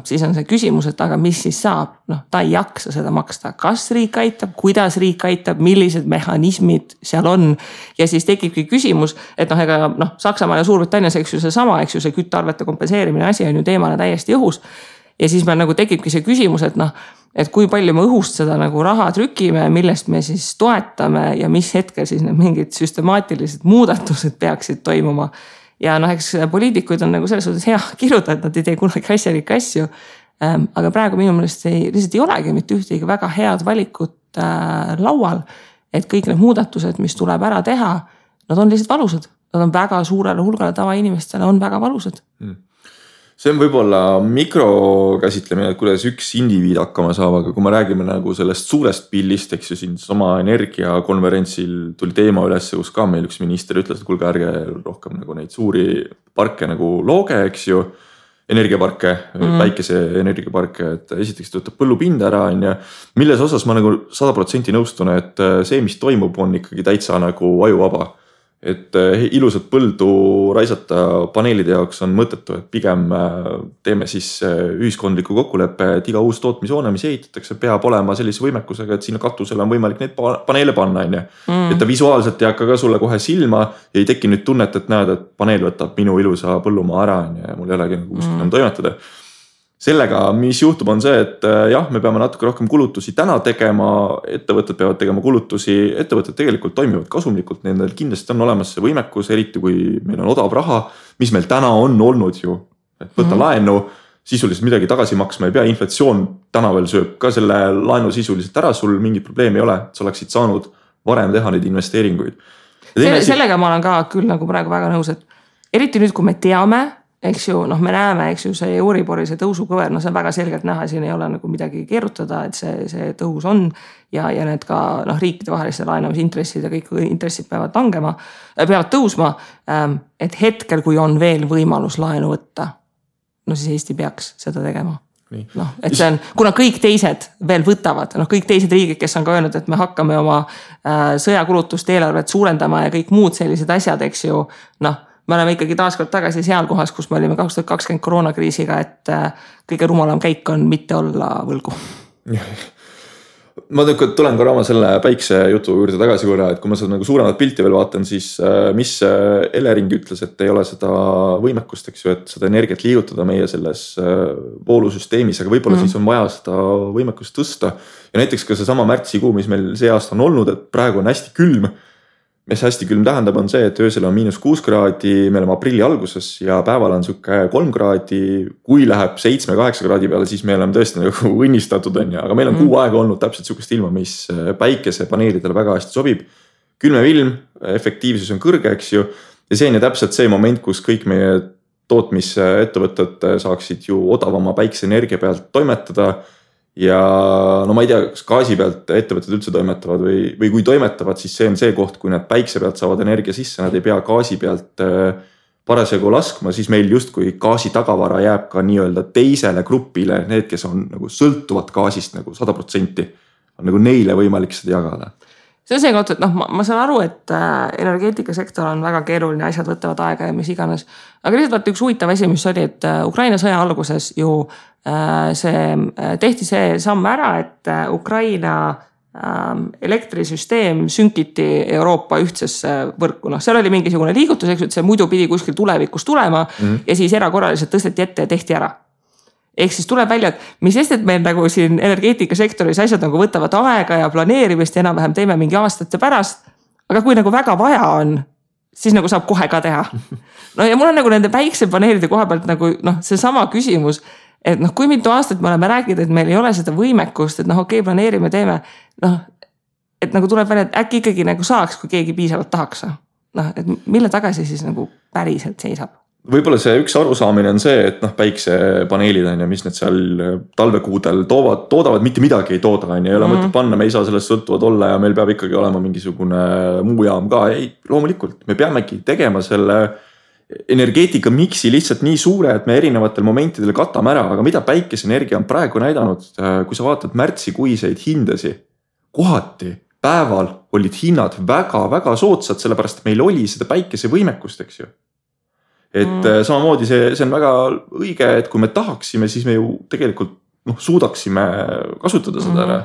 siis on see küsimus, et aga mis siis saab? Ta ei jaksa seda maksta. Kas riik aitab, kuidas riik aitab, millised mehhanismid seal on? Ja siis tekibki küsimus, et Saksamaa ja Suurbritannias, eks ju see sama, eks ju see küttearvete kompenseerimine asi on ju teemana täiesti õhus. Ja siis meil nagu tekibki see küsimus, et kui palju me õhust seda nagu raha trükime, millest me siis toetame ja mis hetkel siis need mingid süstemaatilised muudatused peaksid toimuma. Ja eks poliitikuid on nagu selles suhtes hea kirjutada, et nad ei tee kunagi asjalikke asju. Aga praegu minu meelest lihtsalt ei olegi mitte ühtegi väga head valikut laual, et kõik need muudatused, mis tuleb ära teha, nad on lihtsalt valusad. Nad on väga suurele hulgale tavainimestele on väga valusad. See on võib-olla mikrokäsitlemine, et kuidas üks indiviid hakkama saab, aga kui me räägime nagu sellest suurest pillist, eks ju siin sama energiakonverentsil tuli teema üles, kus ka meil üks minister ütles, et kuulge ärge rohkem nagu neid suuri parke nagu looge, eks ju, energiaparke, päikese energiaparke, et esiteks töötab põllupind ära, milles osas ma nagu 100% nõustun, et see, mis toimub, on ikkagi täitsa nagu ajuvaba. et ilusat põldu raisata paneelide jaoks on mõttetu, et pigem teeme siis ühiskondliku kokkuleppe, et iga uus tootmishoone, mis ehitatakse, peab olema sellise võimekusega, et sinna katusele on võimalik neid paneele panna, on ju. Et ta visuaalselt ei hakka ka sulle kohe silma ja ei teki nüüd tunnet, et näed, et paneel võtab minu ilusa põllumaa ära, on ju, ja mul ei olegi nagu kuskil toimetada. Sellega, mis juhtub, on see, et jah, me peame natuke rohkem kulutusi täna tegema, ettevõtted peavad tegema kulutusi, ettevõtted tegelikult toimivad kasumlikult, nendel kindlasti on olemas see võimekus, eriti kui meil on odav raha, mis meil täna on olnud ju, et võtta laenu, sisuliselt midagi tagasi maksma ei pea, inflatsioon täna veel sööb ka selle laenu sisuliselt ära, sul mingit probleemi ei ole, sa oleksid saanud varem teha neid investeeringuid. Sellega ma olen ka küll nagu praegu väga nõus, et eriti nüüd, kui me teame, eks ju, me näeme, eks ju, see Euribori, see tõusukõver, see on väga selgelt näha, siin ei ole nagu midagi keerutada, et see tõus on ja need ka riikide vaheliste laenamisintressid ja kõik intressid peavad tõusma, et hetkel, kui on veel võimalus laenu võtta, siis Eesti peaks seda tegema. Et see on, kuna kõik teised veel võtavad, kõik teised riigid, kes on ka öelnud, et me hakkame oma sõjakulutust eelarvet suurendama ja kõik muud sellised asjad, eks ju, me oleme ikkagi taaskord tagasi seal kohas, kus me olime 2020 koroonakriisiga, et kõige rumalam käik on mitte olla võlgu. Ma tulen korra oma selle päikse jutu juurde tagasi korra, et kui ma seda nagu suuremat pilti veel vaatan, siis mis Elering ütles, et ei ole seda võimekust, eks ju, et seda energiat liigutada meie selles voolusüsteemis, aga võib-olla siis on vaja seda võimekust tõsta. Ja näiteks ka see sama märtsikuu, mis meil see aasta on olnud, et praegu on hästi külm. Mis hästi külm tähendab on see, et öösel on -6 kraadi, me oleme aprilli alguses ja päeval on suke 3 kraadi, kui läheb 7-8 kraadi peale, siis me oleme tõesti nagu õnnistatud, on ju, aga meil on kuu aega olnud täpselt sukest ilma, mis päikesepaneelidele väga hästi sobib. Külmem ilm, efektiivsus on kõrge, eks ju, ja see on ju täpselt see moment, kus kõik meie tootmisettevõtted saaksid ju odavama päikeseenergia pealt toimetada. Ja ma ei tea, kas gaasi pealt ettevõtted üldse toimetavad või kui toimetavad, siis see on see koht, kui nad päikse pealt saavad energia sisse, nad ei pea gaasi pealt parasjagu laskma, siis meil justkui gaasi tagavara jääb ka nii-öelda teisele grupile, need, kes on nagu sõltuvad gaasist nagu 100%, on nagu neile võimalik seda jagada. See on see koht, et ma saan aru, et energeetikasektor on väga keeruline, asjad võtavad aega ja mis iganes. Aga lihtsalt üks huvitav asi, mis oli, et Ukraina sõja alguses ju tehti see samm ära, et Ukraina elektrisüsteem sünkiti Euroopa ühtsesse võrku. Seal oli mingisugune liigutus, eks, et see muidu pidi kuskil tulevikus tulema ja siis erakorraliselt tõsteti ette ja tehti ära. Ehk siis tuleb välja, et mis sest, et meil nagu siin energeetikasektoris asjad nagu võtavad aega ja planeerimist ja enam-vähem teeme mingi aastate pärast. Aga kui nagu väga vaja on, siis nagu saab kohe ka teha. Ja mul on nagu nende päiksepaneelide koha pealt nagu see sama küsimus, et kui mitu aastat me oleme rääkinud, et meil ei ole seda võimekust, et okei, planeerime, teeme, et nagu tuleb välja, et äkki ikkagi nagu saaks, kui keegi piisavalt tahaks. Et mille tagasi siis nagu päriselt seisab? Võib-olla see üks arusaamine on see, et päiksepaneelid on ja mis need seal talvekuudel toodavad, mitte midagi ei tooda, ei ole mõtet panna, me ei saa sellest sõltuvad olla ja meil peab ikkagi olema mingisugune muu jaam ka. Ei, loomulikult, me peamegi tegema selle energeetika miksi lihtsalt nii suure, et me erinevatel momentidel katame ära, aga mida päikeseenergia on praegu näidanud, kui sa vaatad märtsikuiseid hindasi, kohati päeval olid hinnad väga-väga soodsad, sellepärast et meil oli seda päikese võimekust, eks ju. Et samamoodi see on väga õige, et kui me tahaksime, siis me ju tegelikult suudaksime kasutada seda ära.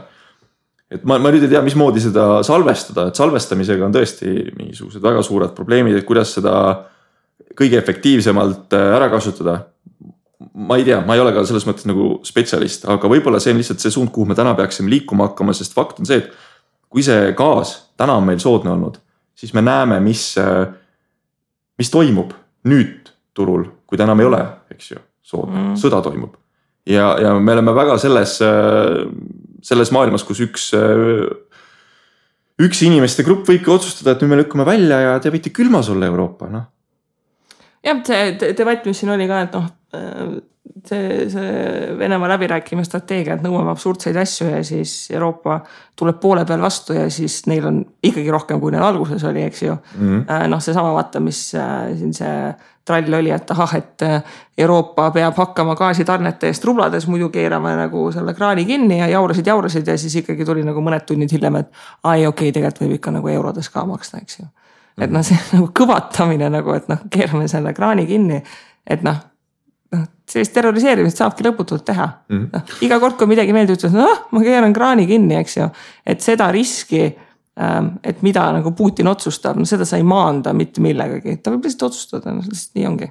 Et ma nüüd ei tea, mismoodi seda salvestada, et salvestamisega on tõesti mingisugused väga suured probleemid, et kuidas seda kõige efektiivsemalt ära kasutada. Ma ei tea, ma ei ole ka selles mõttes nagu spetsialist, aga võib-olla see on lihtsalt see suund, kuhu me täna peaksime liikuma hakkama, sest fakt on see, et kui see gaas täna on meil soodne olnud, siis me näeme, mis toimub nüüd turul, kui ta enam ei ole, eks ju, soodne, sõda toimub. Ja me oleme väga selles maailmas, kus üks inimeste grupp võibki otsustada, et nüüd me lükkame välja ja te võite külmas olla Euroopa, Jah, see debatt, mis siin oli ka, et see Venemaa läbirääkime strateegia, et nõuame absurdseid asju ja siis Euroopa tuleb poole peal vastu ja siis neil on ikkagi rohkem, kui neil alguses oli, eks ju. See sama vaata, mis siin see trall oli, et et Euroopa peab hakkama gaasitarnete eest rublades, muidu keerame nagu selle kraani kinni ja jaurasid ja siis ikkagi tuli nagu mõned tunnid hiljem, et okei, tegelikult võib ikka nagu eurodes ka maksta, eks ju. et noh, see nagu kõvatamine nagu, et noh, keerame selle kraani kinni, et noh, sellist terroriseerimist saabki lõputult teha. Iga kord, kui midagi meeldi ütles, ma keeran kraani kinni, eks ju, et seda riski, et mida nagu Putin otsustab, no seda sa ei maanda mitte millegagi, ta võib lihtsalt otsustada, lihtsalt nii ongi.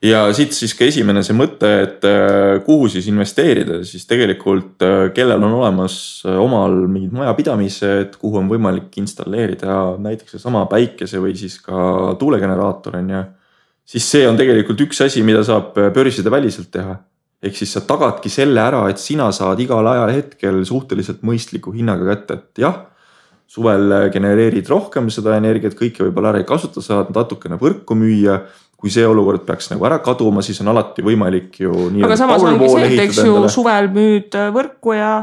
Ja siit siis ka esimene see mõte, et kuhu siis investeerida, siis tegelikult kellel on olemas omal mingid majapidamised, kuhu on võimalik installeerida näiteks sama päikese või siis ka tuulegeneraator on ja siis see on tegelikult üks asi, mida saab börside väliselt teha. Ehk siis sa tagadki selle ära, et sina saad igal ajal hetkel suhteliselt mõistliku hinnaga kätte, et jah, suvel genereerid rohkem seda energiat, kõike võib-olla ära ei kasuta, saad natukene võrku müüa. Kui see olukord peaks nagu ära kaduma, siis on alati võimalik ju aga samas ongi see, et eks ju suvel müüd võrku ja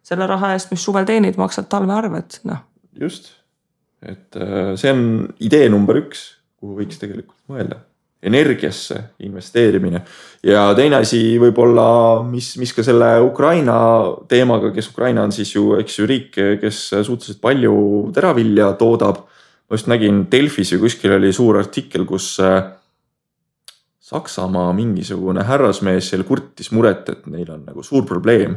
selle raha eest, mis suvel teenid, maksad talve arved. No. Just, et see on idee number 1, kuhu võiks tegelikult mõelda. Energiasse investeerimine ja teine asi võib-olla, mis ka selle Ukraina teemaga, kes Ukraina on siis ju, eks ju riik, kes suhteliselt palju teravilja toodab. Ma just nägin Delfis ju kuskil oli suur artikkel, kus Saksamaa mingisugune härrasmees seal kurtis muret, et neil on nagu suur probleem.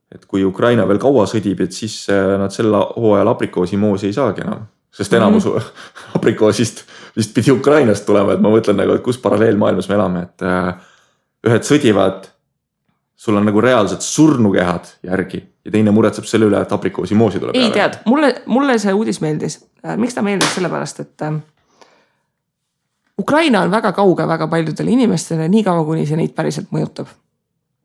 Et kui Ukraina veel kaua sõdib, et siis nad selle hooajal aprikoosimoosi ei saagi enam. Sest enamus aprikoosist vist pidi Ukrainast tulema, et ma mõtlen nagu, et kus paralleelmaailmas me elame, et ühed sõdivad, sul on nagu reaalselt surnukehad järgi ja teine muretseb selle üle, et aprikoosimoosi tuleb. Ei tead, mulle see uudis meeldis. Miks ta meeldis sellepärast, et Ukraina on väga kauge väga paljudele inimestele, nii kaua kuni see neid päriselt mõjutab.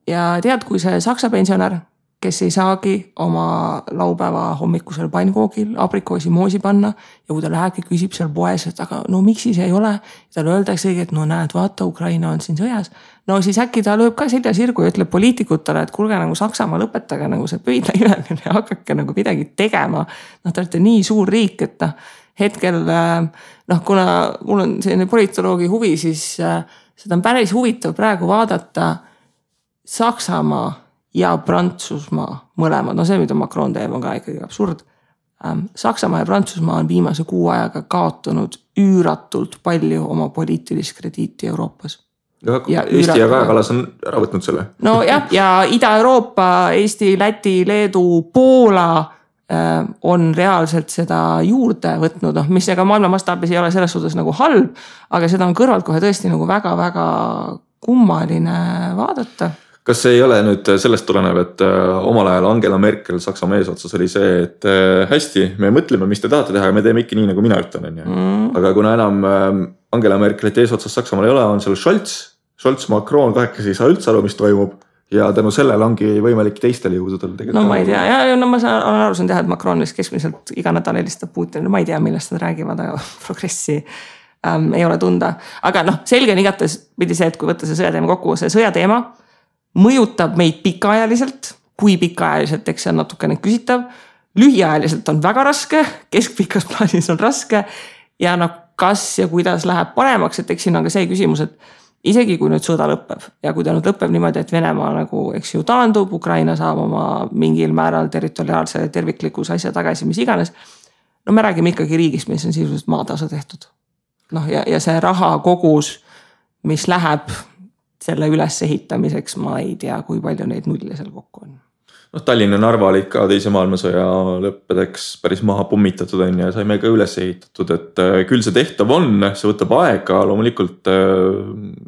Ja tead, kui see saksa pensionär, kes ei saagi oma laupäeva hommikusel pannkoogil aprikoosimoosi panna ja kui ta lähebki küsib seal poes, et aga no miks siis ei ole, talle öeldakse, et no näed, vaata, Ukraina on siin sõjas. No siis äkki ta lööb ka selja sirgu ja ütleb poliitikutele, et kuulge nagu Saksamaa lõpetage nagu see pöidla imeline ja hakake nagu midagi tegema. Te olete nii suur riik, et hetkel, kuna mul on selline politoloogi huvi, siis seda on päris huvitav praegu vaadata Saksamaa ja Prantsusmaa mõlemad. No see, mida Macron teeb, on ka ikkagi absurd. Saksamaa ja Prantsusmaa on viimase 6 ajaga kaotanud üüratult palju oma poliitilist krediiti Euroopas. Ja Eesti ja Kaja Kallas on ära võtnud selle. No jah, ja Ida-Euroopa, Eesti, Läti, Leedu, Poola on reaalselt seda juurde võtnud, mis ega maailma mastaabis ei ole selles suhtes nagu halb, aga seda on kõrvalt kohe tõesti nagu väga-väga kummaline vaadata. Kas see ei ole nüüd sellest tulenev, et omal ajal Angela Merkel Saksamaa eesotsas oli see, et hästi, me mõtleme, mis te tahate teha ja me teeme ikka nii, nagu mina ütlen. Aga kuna enam Angela Merkelit eesotsas Saksamaal ei ole, on seal Scholz, Macron, kahekesi ei saa üldse aru, mis toimub. Ja tänu sellel ongi võimalik teistele jõududel tegelikult. No ma ei tea, ja ma olen aru saanud teha, et Macron keskmiselt iga nädal helistab Putinile, ma ei tea, millest nad räägivad, aga progressi ei ole tunda. Aga selge on igates pidi see, et kui võtta see sõjateema kokku, see sõjateema mõjutab meid pikaajaliselt, kui pikaajaliselt, eks see on natukene küsitav, lühiajaliselt on väga raske, keskpikas plaanis on raske ja kas ja kuidas läheb paremaks, et eks siin on ka see küsimus, et isegi kui nüüd sõda lõpeb ja kui ta nüüd lõpeb niimoodi, et Venemaa nagu, eks ju, taandub, Ukraina saab oma mingil määral territoriaalse terviklikus asja tagasi, mis iganes. No me räägime ikkagi riigist, mis on sisuliselt maatasa tehtud. Ja see raha kogus, mis läheb selle üles ehitamiseks, ma ei tea, kui palju neid nulle seal kokku on. Tallinna Narva olid ka teise maailmasõja lõppedeks päris maha pummitatud ja saime ka üles ehitatud, et küll see tehtav on, see võtab aega, loomulikult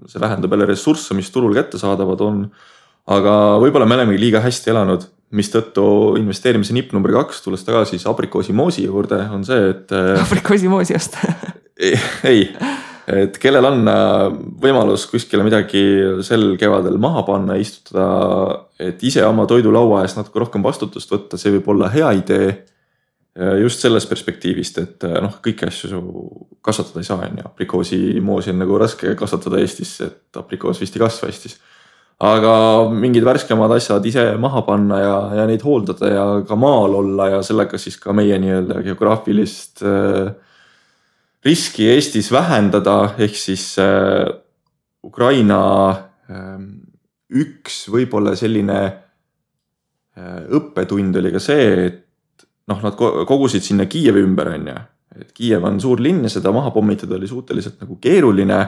see vähendab jälle ressursse, mis turul kätte saadavad on, aga võib-olla me oleme liiga hästi elanud, mis tõttu investeerimise nipp number 2, tulles tagasi siis aprikoosimoosi juurde, on see, et aprikoosimoosi just ei, et kellel on võimalus kuskile midagi sel kevadel maha panna, istutada, et ise oma toidulaua eest natuke rohkem vastutust võtta, see võib olla hea idee just sellest perspektiivist, et kõiki asju kasvatada ei saa. Aprikoosimoosi on nagu raske kasvatada Eestis, et aprikoos vist ei kasva Eestis. Aga mingid värskemad asjad ise maha panna ja neid hooldada ja ka maal olla ja sellega siis ka meie nii-öelda geograafilist riski Eestis vähendada, ehk siis Ukraina üks võib-olla selline õppetund oli ka see, et nad kogusid sinna Kiievi ümber, et Kiiev on suur linn ja seda maha pommitada oli suhteliselt nagu keeruline.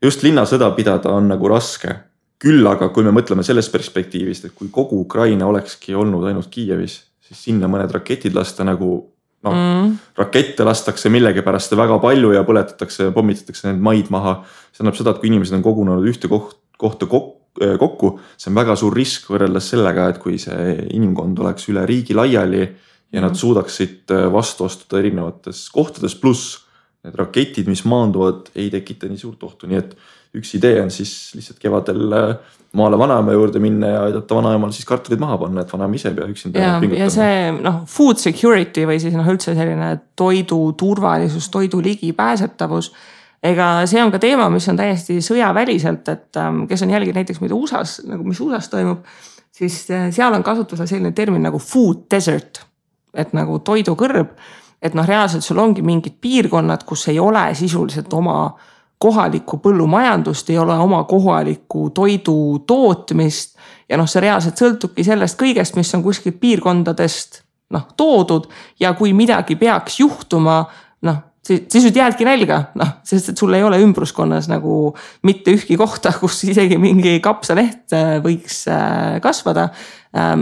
Just linnasõda pidada on nagu raske. Küll aga kui me mõtleme sellest perspektiivist, et kui kogu Ukraina olekski olnud ainult Kiievis, siis sinna mõned raketid lasta nagu rakette lastakse millegi pärast väga palju ja põletatakse, pommitatakse need maid maha. See annab seda, et kui inimesed on kogunenud ühte kohta kokku, see on väga suur risk võrreldes sellega, et kui see inimkond oleks üle riigi laiali ja nad suudaksid vastu astuda erinevates kohtades, pluss need raketid, mis maanduvad, ei tekita nii suurt ohtu. Nii et üks idee on siis lihtsalt kevadel maale vanaema juurde minna ja aidata vanaemal siis kartulid maha panna, et vanaema ise pea üksinda pingutama. Ja see food security või siis üldse selline toidu turvalisus, toidu ligipääsetavus. Ega see on ka teema, mis on täiesti sõjaväliselt, et kes on jälginud näiteks mida USAs, nagu mis USAs toimub, siis seal on kasutusel selline termin nagu food desert, et nagu toidukõrb, et reaalselt sul ongi mingid piirkonnad, kus ei ole sisuliselt oma kohalikku põllumajandust, ei ole oma kohalikku toidu tootmist ja see reaalselt sõltubki sellest kõigest, mis on kuskilt piirkondadest toodud ja kui midagi peaks juhtuma, siis nüüd jäädki nälga, sest et sul ei ole ümbruskonnas nagu mitte ühki kohta, kus isegi mingi kapsaleht võiks kasvada.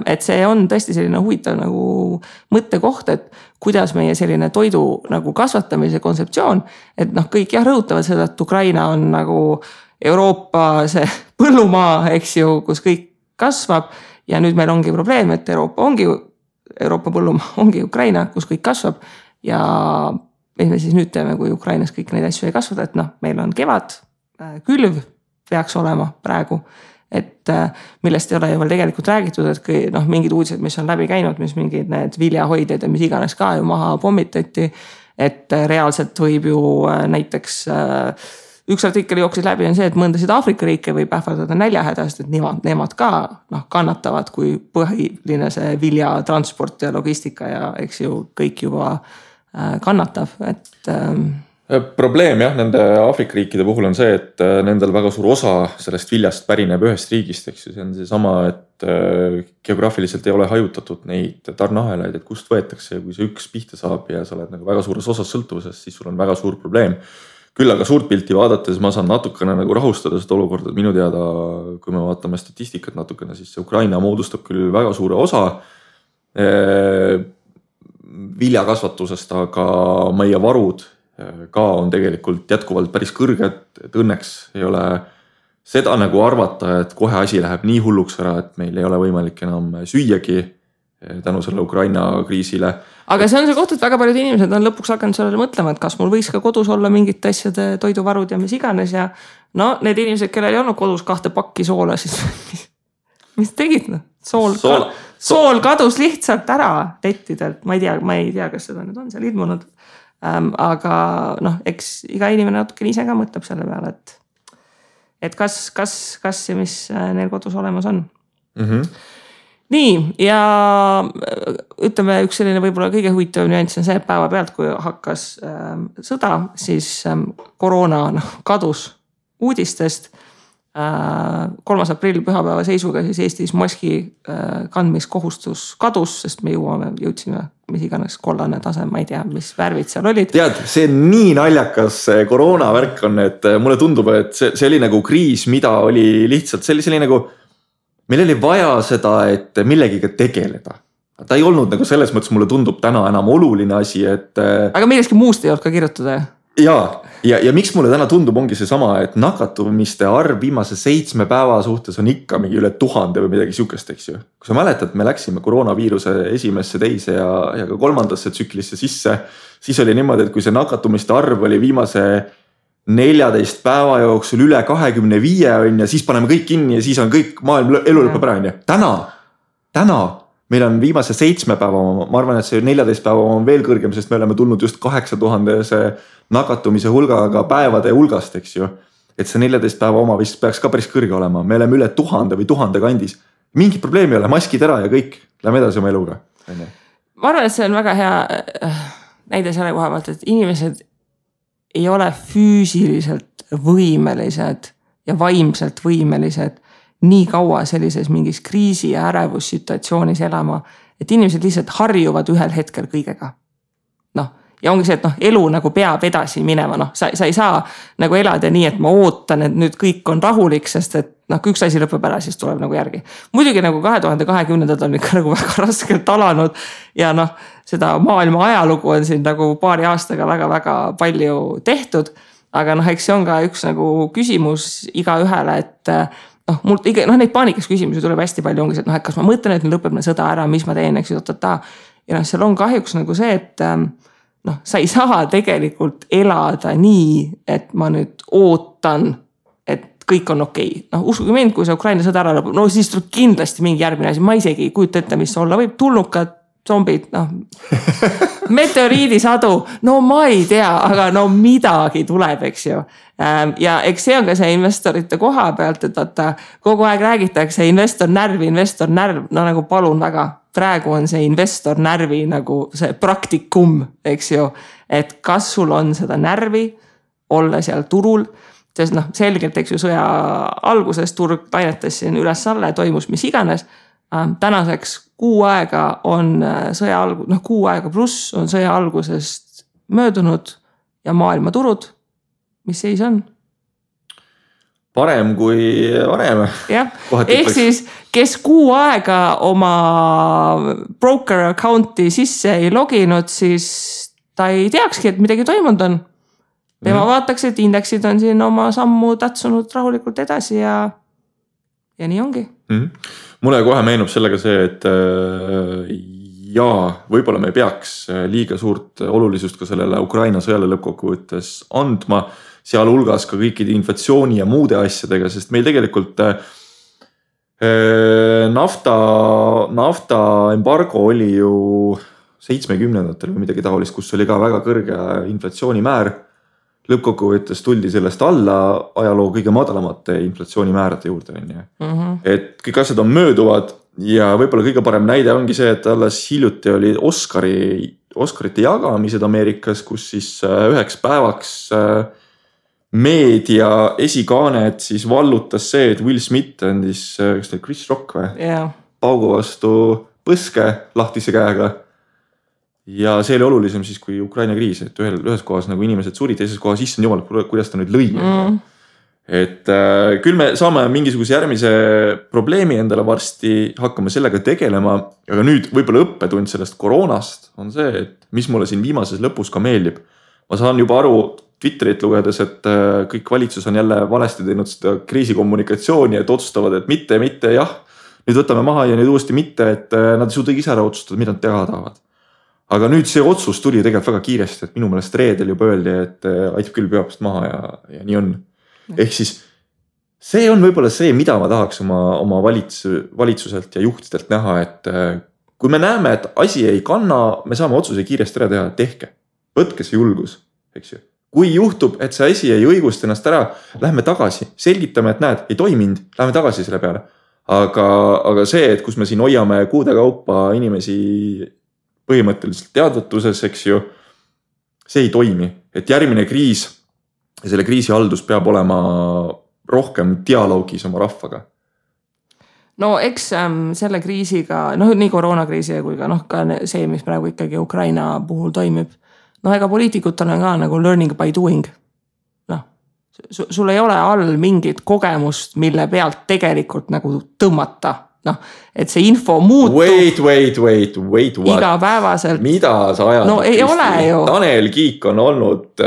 Et see on tõesti selline huvitav nagu mõttekoht, et kuidas meie selline toidu nagu kasvatamise kontseptsioon, et kõik rõhutavad seda, et Ukraina on nagu Euroopa see põllumaa, eks ju, kus kõik kasvab ja nüüd meil ongi probleem, et Euroopa põllumaa ongi Ukraina, kus kõik kasvab ja mis me siis nüüd teeme, kui Ukrainas kõik neid asju ei kasvada, et meil on kevad, külv peaks olema praegu, et millest ei ole ju veel tegelikult räägitud, et mingid uudised, mis on läbi käinud, mis mingid need viljahoidjad ja mis iganes ka ju maha pommitati, et reaalselt võib ju näiteks üks artikkel jooksis läbi on see, et mõndasid Aafrika riike võib ähvardada näljahädast, et nemad ka kannatavad, kui põhiline see viljatransport ja logistika ja eks ju kõik juba kannatab, et probleem nende Aafrika riikide puhul on see, et nendel väga suur osa sellest viljast pärineb ühest riigist, eks ju, see on see sama, et geograafiliselt ei ole hajutatud neid tarneahelaid, et kust võetakse ja kui see üks pihta saab ja sa oled nagu väga suures osas sõltuvuses, siis sul on väga suur probleem. Küll aga suurt pilti vaadates ma saan natukene nagu rahustada seda olukorda, et minu teada, kui me vaatame statistikat natukene, siis see Ukraina moodustab küll väga suure osa viljakasvatusest, aga meie varud ka on tegelikult jätkuvalt päris kõrged, et õnneks ei ole seda nagu arvata, et kohe asi läheb nii hulluks ära, et meil ei ole võimalik enam süüagi tänu selle Ukraina kriisile. Aga see on see koht, et väga paljud inimesed on lõpuks hakanud sellele mõtlema, et kas mul võiks ka kodus olla mingit asjade toiduvarud ja mis iganes ja need inimesed, kellel ei olnud kodus 2 pakki soola, siis mis tegid? Sool kadus lihtsalt ära lettidelt, ma ei tea, kas seda nüüd on seal ilmunud. Aga eks iga inimene natuke ise ka mõtleb selle peale, et kas ja mis neil kodus olemas on. Nii, ja ütleme, üks selline võib-olla kõige huvitav nüanss on see, et päeva pealt, kui hakkas sõda, siis koroona kadus uudistest. 3. aprill pühapäeva seisuga siis Eestis maski kandmiskohustus kadus, sest me jõudsime mis iganes kollane tase, ma ei tea, mis värvid seal olid. Tead, see on nii naljakas koroonavärk on, et mulle tundub, et see oli nagu kriis, mida oli lihtsalt, see oli nagu, meil oli vaja seda, et millegiga tegeleda. Ta ei olnud nagu selles mõttes, mulle tundub täna enam oluline asi, et aga millestki muust ei olnud ka kirjutada? Ja miks mulle täna tundub ongi see sama, et nakatumiste arv viimase 7 päeva suhtes on ikka mingi üle 1000 või midagi sihukest, eks ju. Kui sa mäletad, me läksime koroonaviiruse esimesse, teise ja ka 3. tsüklisse sisse, siis oli niimoodi, et kui see nakatumiste arv oli viimase 14 päeva jooksul üle 25 on ja siis paneme kõik kinni ja siis on kõik maailm elu lõpeb ära. Täna meil on viimase 7 päeva, ma arvan, et see 14 päeva on veel kõrgem, sest me oleme tulnud just 8000 nakatumise hulgaga päevade hulgast, eks ju. Et see 14 päeva oma vist peaks ka päris kõrge olema. Me oleme üle 1000 või 1000 kandis. Mingi probleemi ei ole, maskid ära ja kõik. Lähme edasi oma eluga. Ma arvan, et see on väga hea näide selle koha pealt, et inimesed ei ole füüsiliselt võimelised ja vaimselt võimelised nii kaua sellises mingis kriisi ja ärevussituatsioonis elama, et inimesed lihtsalt harjuvad ühel hetkel kõigega. ja ongi see, et elu nagu peab edasi minema, sa ei saa nagu elada nii, et ma ootan, et nüüd kõik on rahulik, sest et kui üks asi lõpeb ära, siis tuleb nagu järgi. Muidugi nagu 2020 on ikka nagu väga raskelt alanud ja seda maailma ajalugu on siin nagu paari aastaga väga-väga palju tehtud, aga eks see on ka üks nagu küsimus igaühele, et mul neid paanikas küsimusi tuleb hästi palju, ongi see, et kas ma mõtlen, et lõpeb sõda ära, mis ma teen, eks ju, ja seal on kahjuks nagu see, et sa ei saa tegelikult elada nii, et ma nüüd ootan, et kõik on okei. Uskuge mind, kui see Ukraina sõda ära lõpeb, siis tuleb kindlasti mingi järgmine asi, ma isegi ei kujuta ette, mis olla võib, tulnukad, zombid, meteoriidisadu, ma ei tea, aga midagi tuleb, eks ju. Ja eks see on ka see investorite koha pealt, et vaata, kogu aeg räägitakse investor närv, nagu palun väga. Praegu on see investor närvi nagu see praktikum, eks ju, et kas sul on seda närvi olla seal turul, sest selgelt, eks ju, sõja alguses turg lainetas siin üles-alla ja toimus mis iganes. Tänaseks 6 aega on sõja 6 aega pluss on sõja algusest möödunud ja maailmaturud, mis seis on? Parem kui varem. Jah, ehk siis, kes 6 aega oma broker account'i sisse ei loginud, siis ta ei teakski, et midagi toimunud on. Tema vaataks, et indeksid on siin oma sammu tatsunud rahulikult edasi ja nii ongi. Mulle kohe meenub sellega see, et võib-olla me peaks liiga suurt olulisust ka sellele Ukraina sõjale lõppkokkuvõttes andma, seal hulgas ka kõikide inflatsiooni ja muude asjadega, sest meil tegelikult nafta embargo oli ju 70-ndatel või midagi taolist, kus oli ka väga kõrge inflatsioonimäär. Lõppkokkuvõttes tuldi sellest alla ajaloo kõige madalamate inflatsioonimäärade juurde. Et kõik asjad on mööduvad ja võib-olla kõige parem näide ongi see, et alles hiljuti oli Oscarite jagamised Ameerikas, kus siis üheks päevaks meedia esikaanet siis vallutas see, et Will Smith andis, kas ta Chris Rock või? Paugu vastu põske lahtise käega. Ja see oli olulisem siis kui Ukraina kriis, et ühes kohas nagu inimesed surid, teises kohas issand jumal, kuidas ta nüüd lõi. Et küll me saame mingisuguse järgmise probleemi endale varsti, hakkame sellega tegelema, aga nüüd võib-olla õppetund sellest koroonast on see, et mis mulle siin viimases lõpus ka meeldib. Ma saan juba aru Twitterit lugedes, et kõik valitsus on jälle valesti teinud seda kriisikommunikatsiooni, et otsustavad, et mitte, jah, nüüd võtame maha ja nüüd uuesti mitte, et nad ei suuda ise ära otsustada, mida nad teha tahavad. Aga nüüd see otsus tuli tegelikult väga kiiresti, et minu meelest reedel juba öeldi, et aitab küll peopast maha ja nii on. Ehk siis see on võib-olla see, mida ma tahaks oma valitsuselt ja juhtidelt näha, et kui me näeme, et asi ei kanna, me saame otsuse kiiresti ära teha, tehke. Võtke see julgus, eks ju. Kui juhtub, et see asi ei õigusta ennast ära, lähme tagasi, selgitame, et näed, ei toiminud, lähme tagasi selle peale. Aga see, et kus me siin hoiame kuude kaupa inimesi põhimõtteliselt teadvatuses, eks ju, see ei toimi. Et järgmine kriis ja selle kriisi haldus peab olema rohkem dialoogis oma rahvaga. No eks selle kriisiga, nii koroonakriisi kui ka see, mis praegu ikkagi Ukraina puhul toimib, ega poliitikutel on ka nagu learning by doing. Sul ei ole all mingit kogemust, mille pealt tegelikult nagu tõmmata. Et see info muutub. Wait, igapäevaselt. Mida sa ajad? No ei ole ju. Tanel Kiik on olnud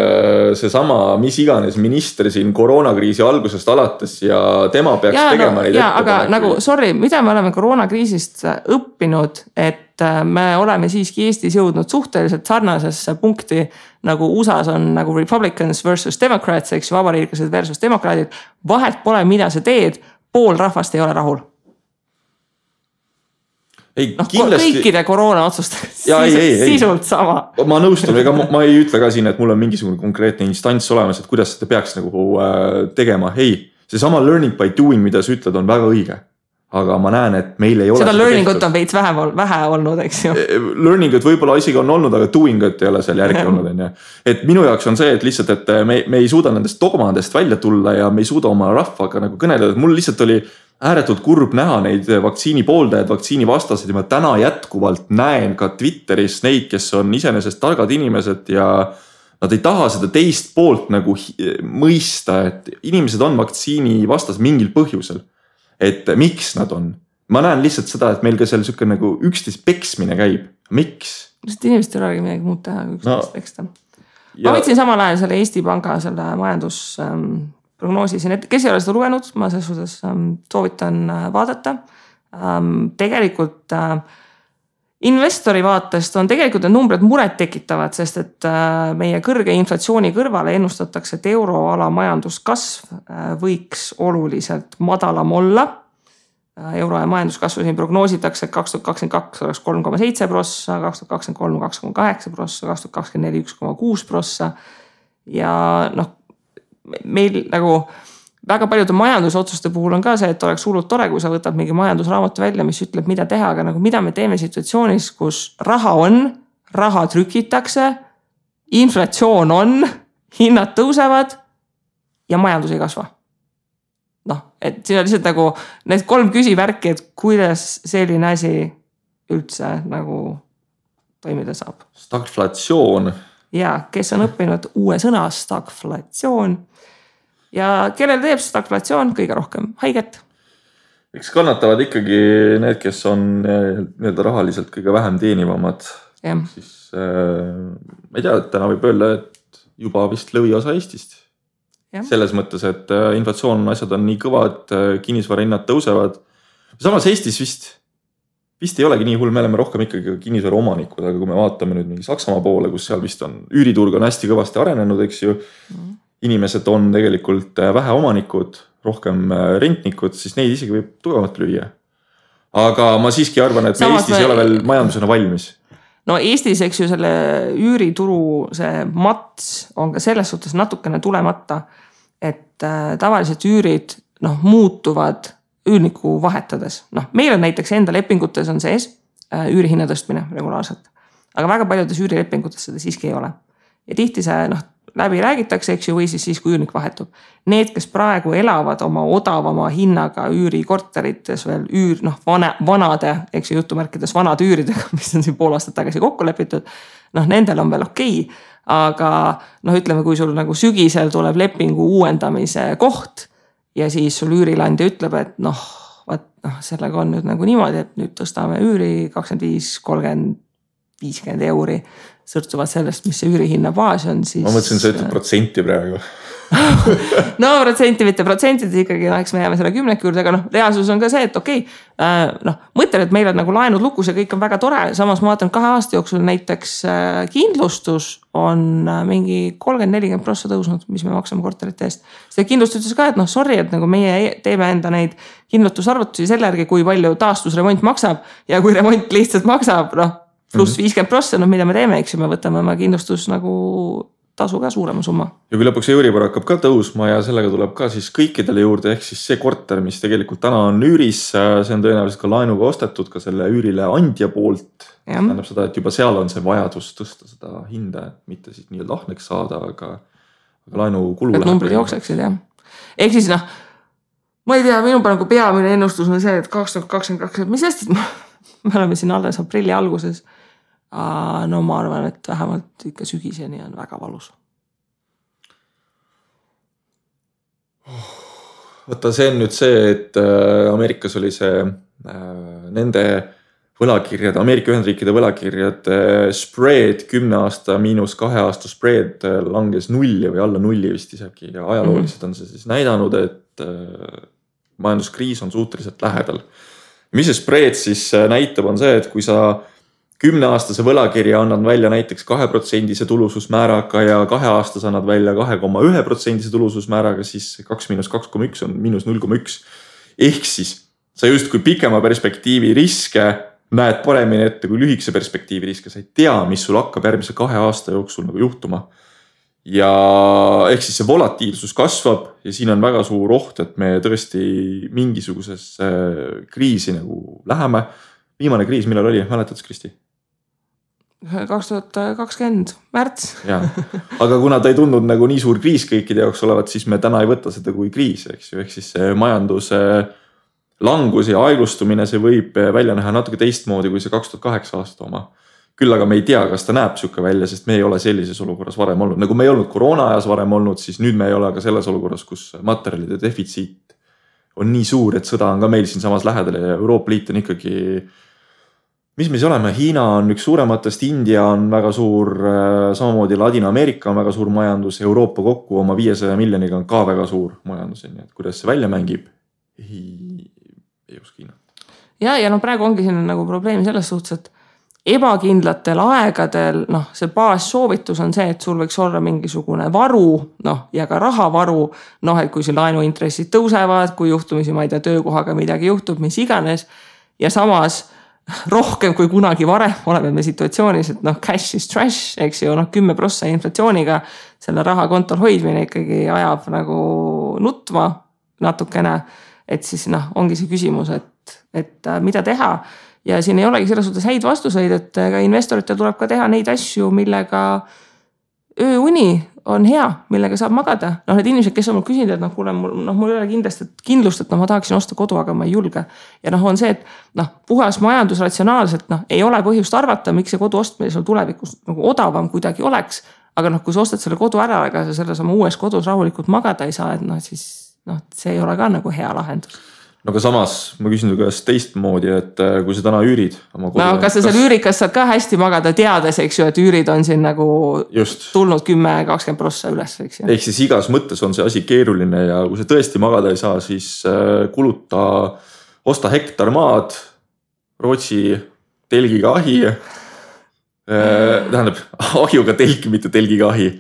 seesama, mis iganes minister siin koroonakriisi algusest alates ja tema peaks tegema neid ettepanekuid. Aga nagu, mida me oleme koroonakriisist õppinud, et me oleme siiski Eestis jõudnud suhteliselt sarnasesse punkti, nagu USAs on nagu Republicans versus Democrats, eks ju, vabariiklased versus demokraadid. Vahet pole, mida sa teed, pool rahvast ei ole rahul. Kõikide koroona otsustega sisult sama. Ma nõustun, ega ma ei ütle ka siin, et mul on mingisugune konkreetne instants olemas, et kuidas seda peaks nagu tegema. See sama learning by doing, mida sa ütled, on väga õige. Aga ma näen, et meil ei ole seda learningut on veits vähe olnud, eks ju. Learningut võib-olla isegi on olnud, aga doingut ei ole seal järgi olnud. Et minu jaoks on see, et lihtsalt, et me ei suuda nendest dogmadest välja tulla ja me ei suuda oma rahvaga nagu kõneleda. Mul lihtsalt oli ääretult kurb näha neid vaktsiini pooldajaid, vaktsiini vastaseid ja ma täna jätkuvalt näen ka Twitteris neid, kes on iseenesest targad inimesed ja nad ei taha seda teist poolt nagu mõista, et inimesed on vaktsiini vastas mingil põhjusel. Et miks nad on? Ma näen lihtsalt seda, et meil ka seal siuke nagu üksteist peksmine käib. Miks? Sest inimesed ei olegi midagi muud teha, kui üksteist peksta. Ma võtsin samal ajal selle Eesti Panga selle majandusprognoosi siin, et kes ei ole seda lugenud, ma selles suhtes soovitan vaadata. Tegelikult investori vaatest on tegelikult need numbrid muret tekitavad, sest et meie kõrge inflatsiooni kõrvale ennustatakse, et euroala majanduskasv võiks oluliselt madalam olla. Euro ja majanduskasvu siin prognoositakse, et 2022 oleks 3,7%, 2023 2,8%, 2024 1,6%. Ja meil nagu väga paljude majandusotsuste puhul on ka see, et oleks hullult tore, kui sa võtad mingi majandusraamatu välja, mis ütleb, mida teha, aga nagu mida me teeme situatsioonis, kus raha on, raha trükitakse, inflatsioon on, hinnad tõusevad ja majandus ei kasva. Et siin on lihtsalt nagu need 3 küsivärki, et kuidas selline asi üldse nagu toimida saab. Stagflatsioon. Ja, kes on õppinud uue sõna stagflatsioon ja kellel teeb stagflatsioon kõige rohkem haiget? Eks kannatavad ikkagi need, kes on nii-öelda rahaliselt kõige vähem teenivamad. Ja. Siis ma ei tea, et täna võib öelda, et juba vist lõviosa Eestist. Ja. Selles mõttes, et inflatsioon asjad on nii kõvad, kinnisvarahinnad tõusevad. Samas Eestis vist ei olegi nii hull, me oleme rohkem ikkagi kinnisvara omanikud, aga kui me vaatame nüüd mingi Saksamaa poole, kus seal vist on üüriturg on hästi kõvasti arenenud, eks ju. Inimesed on tegelikult vähe omanikud, rohkem rentnikud, siis neid isegi võib tugevalt lüüa. Aga ma siiski arvan, et me Eestis ei ole veel majandusena valmis. No Eestis, eks ju, selle üürituru see mats on ka selles suhtes natukene tulemata, et tavaliselt üürid muutuvad üürniku vahetades. Meil on näiteks enda lepingutes on sees üürihinna tõstmine regulaarselt, aga väga paljudes üürilepingutes seda siiski ei ole. Ja tihti see läbi räägitakse, eks ju, või siis kui üürnik vahetub. Need, kes praegu elavad oma odavama hinnaga üürikorterites veel vanade, eks ju, jutumärkides vanade üüridega, mis on siin pool aastat tagasi kokku lepitud, nendel on veel okei. Aga ütleme, kui sul nagu sügisel tuleb lepingu uuendamise koht ja siis sul üürilandja ütleb, et sellega on nüüd nagu niimoodi, et nüüd tõstame üüri 25, 30, 50 euri. Sõrtuvad sellest, mis see üürihinna baas on, siis... Ma mõtlesin, sa ütled protsenti praegu. No protsenti, mitte protsentides ikkagi, eks me jääme selle 10 juurde, aga reaalsus on ka see, et okei, mõtlen, et meil on nagu laenud lukus ja kõik on väga tore, samas ma vaatan 2 aasta jooksul näiteks kindlustus on mingi 30-40% tõusnud, mis me maksame korterite eest. See kindlustus ütles ka, et sorry, et nagu meie teeme enda neid kindlustusarvutusi selle järgi, kui palju taastusremont maksab ja kui remont lihtsalt maksab, pluss 50%, mida me teeme, eks ju, me võtame oma kindlustus nagu tasu ka suurema summa. Ja kui lõpuks Euribor hakkab ka tõusma ja sellega tuleb ka siis kõikidele juurde, ehk siis see korter, mis tegelikult täna on üüris, see on tõenäoliselt ka laenuga ostetud ka selle üürile andja poolt. Tähendab seda, et juba seal on see vajadus tõsta seda hinda, et mitte siis nii-öelda ahneks saada, aga laenu kulu läheb. Et numbrid jookseksid, jah. Ehk siis ma ei tea, minu nagu peamine ennustus on see, et 2022, mis hästi, me oleme siin alles aprilli alguses. No ma arvan, et vähemalt ikka sügiseni on väga valus. Võtta, see on nüüd see, et Ameerikas oli see nende võlakirjad, Ameerika Ühendriikide võlakirjad spread 10 aasta miinus 2 aasta spread langes 0 või alla 0 vist isegi ja ajalooliselt on see siis näidanud, et majanduskriis on suhteliselt lähedal. Mis see spread siis näitab on see, et kui sa 10-aastase võlakirja annad välja näiteks 2% tulususmääraga ja 2 aastas annad välja 2,1% tulususmääraga, siis 2 miinus 2,1 on miinus 0,1. Ehk siis sa just kui pikema perspektiivi riske näed paremini ette kui lühikese perspektiivi riske. Sa ei tea, mis sul hakkab järgmise 2 aasta jooksul nagu juhtuma. Ja ehk siis see volatiilsus kasvab ja siin on väga suur oht, et me tõesti mingisuguses kriisi nagu läheme. Viimane kriis, millal oli? Mäletad, Kristi? 2020 märts. Ja. Aga kuna ta ei tundnud nagu nii suur kriis kõikide jaoks olevat, siis me täna ei võta seda kui kriis, eks ju. Ehk siis see majanduse langus ja aeglustumine, see võib välja näha natuke teistmoodi kui see 2008 aasta oma. Küll aga me ei tea, kas ta näeb siuke välja, sest me ei ole sellises olukorras varem olnud. Nagu me ei olnud koroona ajas varem olnud, siis nüüd me ei ole ka selles olukorras, kus materjalide defitsiit on nii suur, et sõda on ka meil siin samas lähedal ja Euroopa Liit on ikkagi, mis me siis oleme, Hiina on üks suurematest, India on väga suur, samamoodi Ladina-Ameerika on väga suur majandus, Euroopa kokku oma 500 miljoniga on ka väga suur majandus, nii et kuidas see välja mängib, ei oska hinnata. Ja no praegu ongi siin nagu probleem selles suhtes, et ebakindlatel aegadel, see baassoovitus on see, et sul võiks olla mingisugune varu, ja ka rahavaru, et kui siin laenuintressid tõusevad, kui juhtumisi, ma ei tea, töökohaga midagi juhtub, mis iganes, ja samas rohkem kui kunagi varem oleme me situatsioonis, et cash is trash, eks ju, 10% inflatsiooniga selle raha kontol hoidmine ikkagi ajab nagu nutma natukene, et siis ongi see küsimus, et mida teha. Ja siin ei olegi selles suhtes häid vastuseid, et ka investoritel tuleb ka teha neid asju, millega ööuni on hea, millega saab magada. Need inimesed, kes on mul küsinud, et kuule, mul ei ole kindlust, et ma tahaksin osta kodu, aga ma ei julge. Ja on see, et puhas majandus ratsionaalselt ei ole põhjust arvata, miks see kodu ostmine sul tulevikus nagu odavam kuidagi oleks. Aga kui sa ostad selle kodu ära, aga sa selles oma uues kodus rahulikult magada ei saa, et siis see ei ole ka nagu hea lahendus. No aga samas ma küsin käest teistmoodi, et kui sa täna üürid oma kodu. Kas sa seal üürikas saad ka hästi magada teades, eks ju, et üürid on siin nagu tulnud 10-20% üles, eks ju. Ehk siis igas mõttes on see asi keeruline ja kui sa tõesti magada ei saa, siis osta hektar maad, Rootsi telgiga ahi, tähendab ahjuga telgi, mitte telgiga ahi.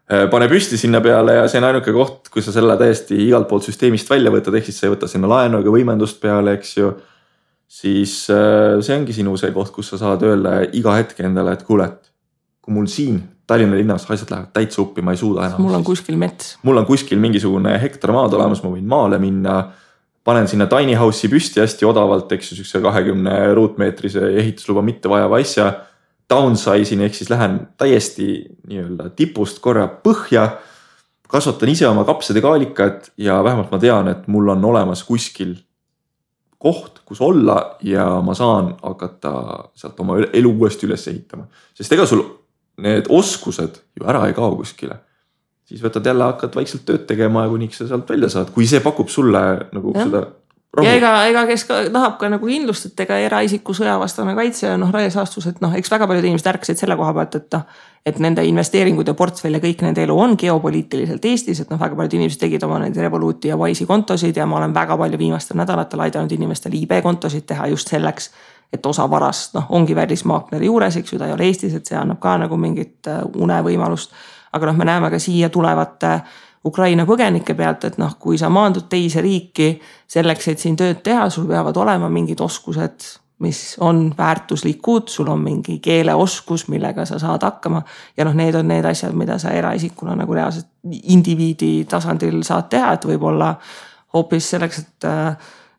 Pane püsti sinna peale ja see on ainuke koht, kui sa selle täiesti igalt poolt süsteemist välja võtad, ehk siis sa ei võta sinna laenu ega võimendust peale, eks ju, siis see ongi sinu see koht, kus sa saad öelda iga hetk endale, et kuule, kui mul siin Tallinna linnas asjad lähevad täitsa uppi, ma ei suuda enam. Mul on kuskil mets. Mul on kuskil mingisugune hektar maad olemas, ma võin maale minna, panen sinna tiny house'i püsti hästi odavalt, eks ju, 20 ruutmeetrise ehitusluba mitte vajava asja, downsize'in, ehk siis lähen täiesti nii-öelda tipust korra põhja, kasvatan ise oma kapsad ja kaalikad ja vähemalt ma tean, et mul on olemas kuskil koht, kus olla ja ma saan hakata sealt oma elu uuesti üles ehitama. Sest ega sul need oskused ju ära ei kao kuskile. Siis võtad jälle, hakkad vaikselt tööd tegema ja kuniks sa sealt välja saad, kui see pakub sulle nagu seda rahu. Ja ega kes tahab ka nagu kindlust, et ega eraisiku sõjavastane kaitse ja raiesaastus, et eks väga paljud inimesed ärkasid selle koha pealt, et nende investeeringud ja portfell ja kõik nende elu on geopoliitiliselt Eestis, et väga paljud inimesed tegid oma neid Revoluti ja Wise'i kontosid ja ma olen väga palju viimastel nädalatel aidanud inimestel IB kontosid teha just selleks, et osa varast ongi välismaakleri juures, eks ju, ta ei ole Eestis, et see annab ka nagu mingit unevõimalust, aga me näeme ka siia tulevate Ukraina põgenike pealt, et kui sa maandud teise riiki selleks, et siin tööd teha, sul peavad olema mingid oskused, mis on väärtuslikud, sul on mingi keeleoskus, millega sa saad hakkama ja need on need asjad, mida sa eraisikuna nagu reaalselt indiviidi tasandil saad teha, et võib-olla hoopis selleks, et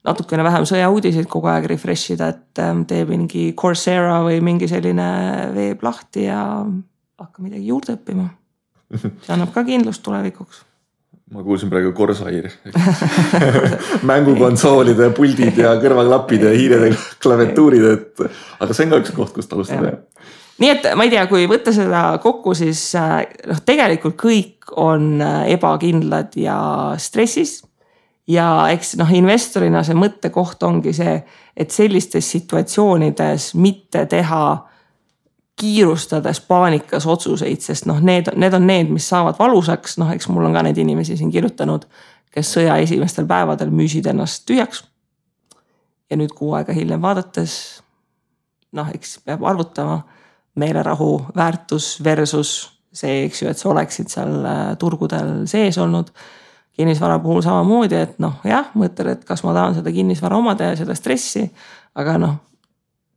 natukene vähem sõjauudiseid kogu aeg refreshida, et teeb mingi Coursera või mingi selline veeb lahti ja hakka midagi juurde õppima. See annab ka kindlust tulevikuks. Ma kuulsin praegu Corsair. Mängukonsoolide, puldid ja kõrvaklapid ja hiired ja klaviatuurid, aga see on ka üks koht, kust alustada. Nii et ma ei tea, kui võtta seda kokku, siis tegelikult kõik on ebakindlad ja stressis. Ja eks investorina see mõttekoht ongi see, et sellistes situatsioonides mitte teha kiirustades paanikas otsuseid, sest need on need, mis saavad valusaks. Eks mul on ka need inimesi siin kirjutanud, kes sõja esimestel päevadel müüsid ennast tühjaks. Ja nüüd kuu aega hiljem vaadates, eks peab arvutama meelerahu väärtus versus see, eks ju, et sa oleksid seal turgudel sees olnud. Kinnisvara puhul samamoodi, et jah, mõtled, et kas ma tahan seda kinnisvara omada ja seda stressi, aga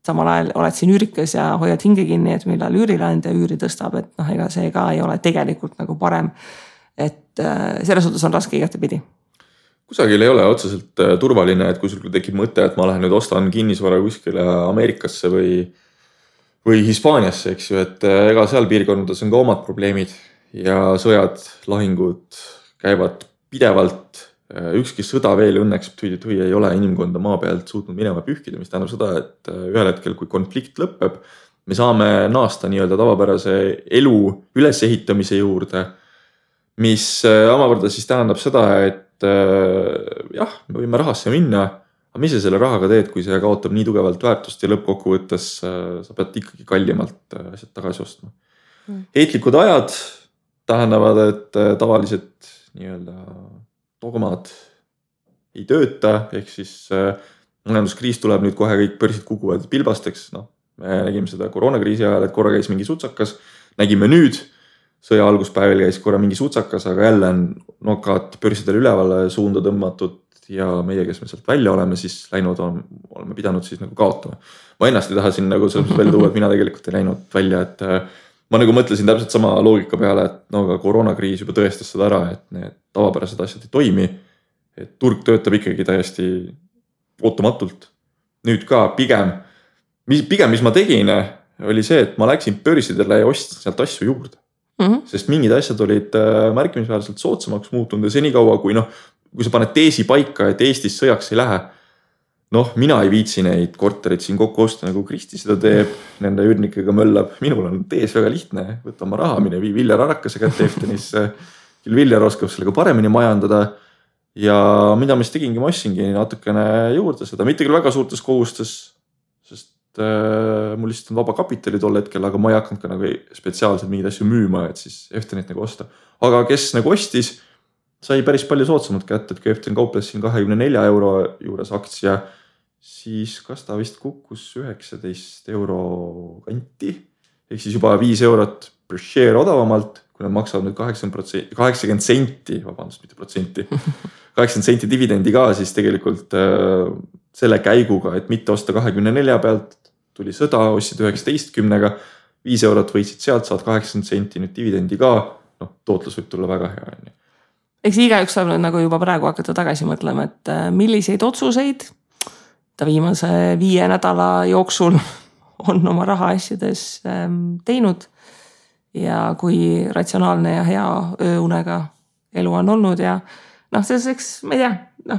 samal ajal oled siin üürikas ja hoiad hinge kinni, et millal üürilaandja üüri tõstab, et ega see ka ei ole tegelikult nagu parem. Et selles suhtes on raske igatepidi. Kusagil ei ole otseselt turvaline, et kui sul tekib mõte, et ma lähen nüüd ostan kinnisvara kuskile Ameerikasse või Hispaaniasse, eks ju, et ega seal piirkondades on ka omad probleemid ja sõjad, lahingud käivad pidevalt. ükski sõda veel õnneks ei ole inimkonda maa pealt suutnud minema pühkida, mis tähendab seda, et ühel hetkel, kui konflikt lõpeb, me saame naasta nii-öelda tavapärase elu ülesehitamise juurde, mis omakorda siis tähendab seda, et jah, me võime rahasse minna, aga mis sa selle rahaga teed, kui see kaotab nii tugevalt väärtust ja lõppkokkuvõttes sa pead ikkagi kallimalt asjad tagasi ostma. Heitlikud ajad tähendavad, et tavalised nii-öelda dogmad ei tööta, ehk siis majanduskriis tuleb nüüd kohe, kõik börsid kukuvad pilbasteks, me nägime seda koroonakriisi ajal, et korra käis mingi sutsakas, nägime nüüd, sõja alguspäevil käis korra mingi sutsakas, aga jälle on nokad börsidel ülevale suunda tõmmatud ja meie, kes me sealt välja oleme, siis läinud oleme pidanud siis nagu kaotama. Ma ennast ei taha siin nagu selles välja tuua, et mina tegelikult ei läinud välja, et ma nagu mõtlesin täpselt sama loogika peale, et aga koroonakriis juba tõestas seda ära, et need tavapärased asjad ei toimi, et turg töötab ikkagi täiesti ootamatult. Nüüd ka pigem, mis ma tegin, oli see, et ma läksin börsidele ja ostsin sealt asju juurde. Sest mingid asjad olid märkimisväärselt soodsamaks muutunud ja senikaua, kui sa paned teesi paika, et Eestis sõjaks ei lähe, mina ei viitsi neid korterid siin kokku osta, nagu Kristi seda teeb, nende üürnikega möllab. Minul on tees väga lihtne, võta oma raha, mine vii Viljar Arakase kätte Eftenisse. Küll Viljar oskab sellega paremini majandada. Ja mida ma siis tegingi, ma ostsingi natukene juurde seda. Mitte küll väga suurtes kohustes, sest mul lihtsalt on vaba kapitali tol hetkel, aga ma ei hakanud ka nagu spetsiaalselt mingid asju müüma, et siis Eftenit nagu osta. Aga kes nagu ostis, sai päris palju soodsamalt kätte, et kui Eften kauples siin 24 euro juures aktsia, siis kas ta vist kukkus 19 euro kanti, ehk siis juba 5 eurot per share odavamalt, kui nad maksavad nüüd 80 senti, vabandust, mitte protsenti, 80 senti dividendi ka, siis tegelikult selle käiguga, et mitte osta 24 pealt, tuli sõda, ostsid 19-ga, 5 eurot võitsid sealt, saad 80 senti nüüd dividendi ka, tootlus võib tulla väga hea. Eks igaüks saab nagu juba praegu hakata tagasi mõtlema, et milliseid otsuseid ta viimase 5 nädala jooksul on oma raha asjades teinud ja kui ratsionaalne ja hea ööunega elu on olnud ja selleks, ma ei tea,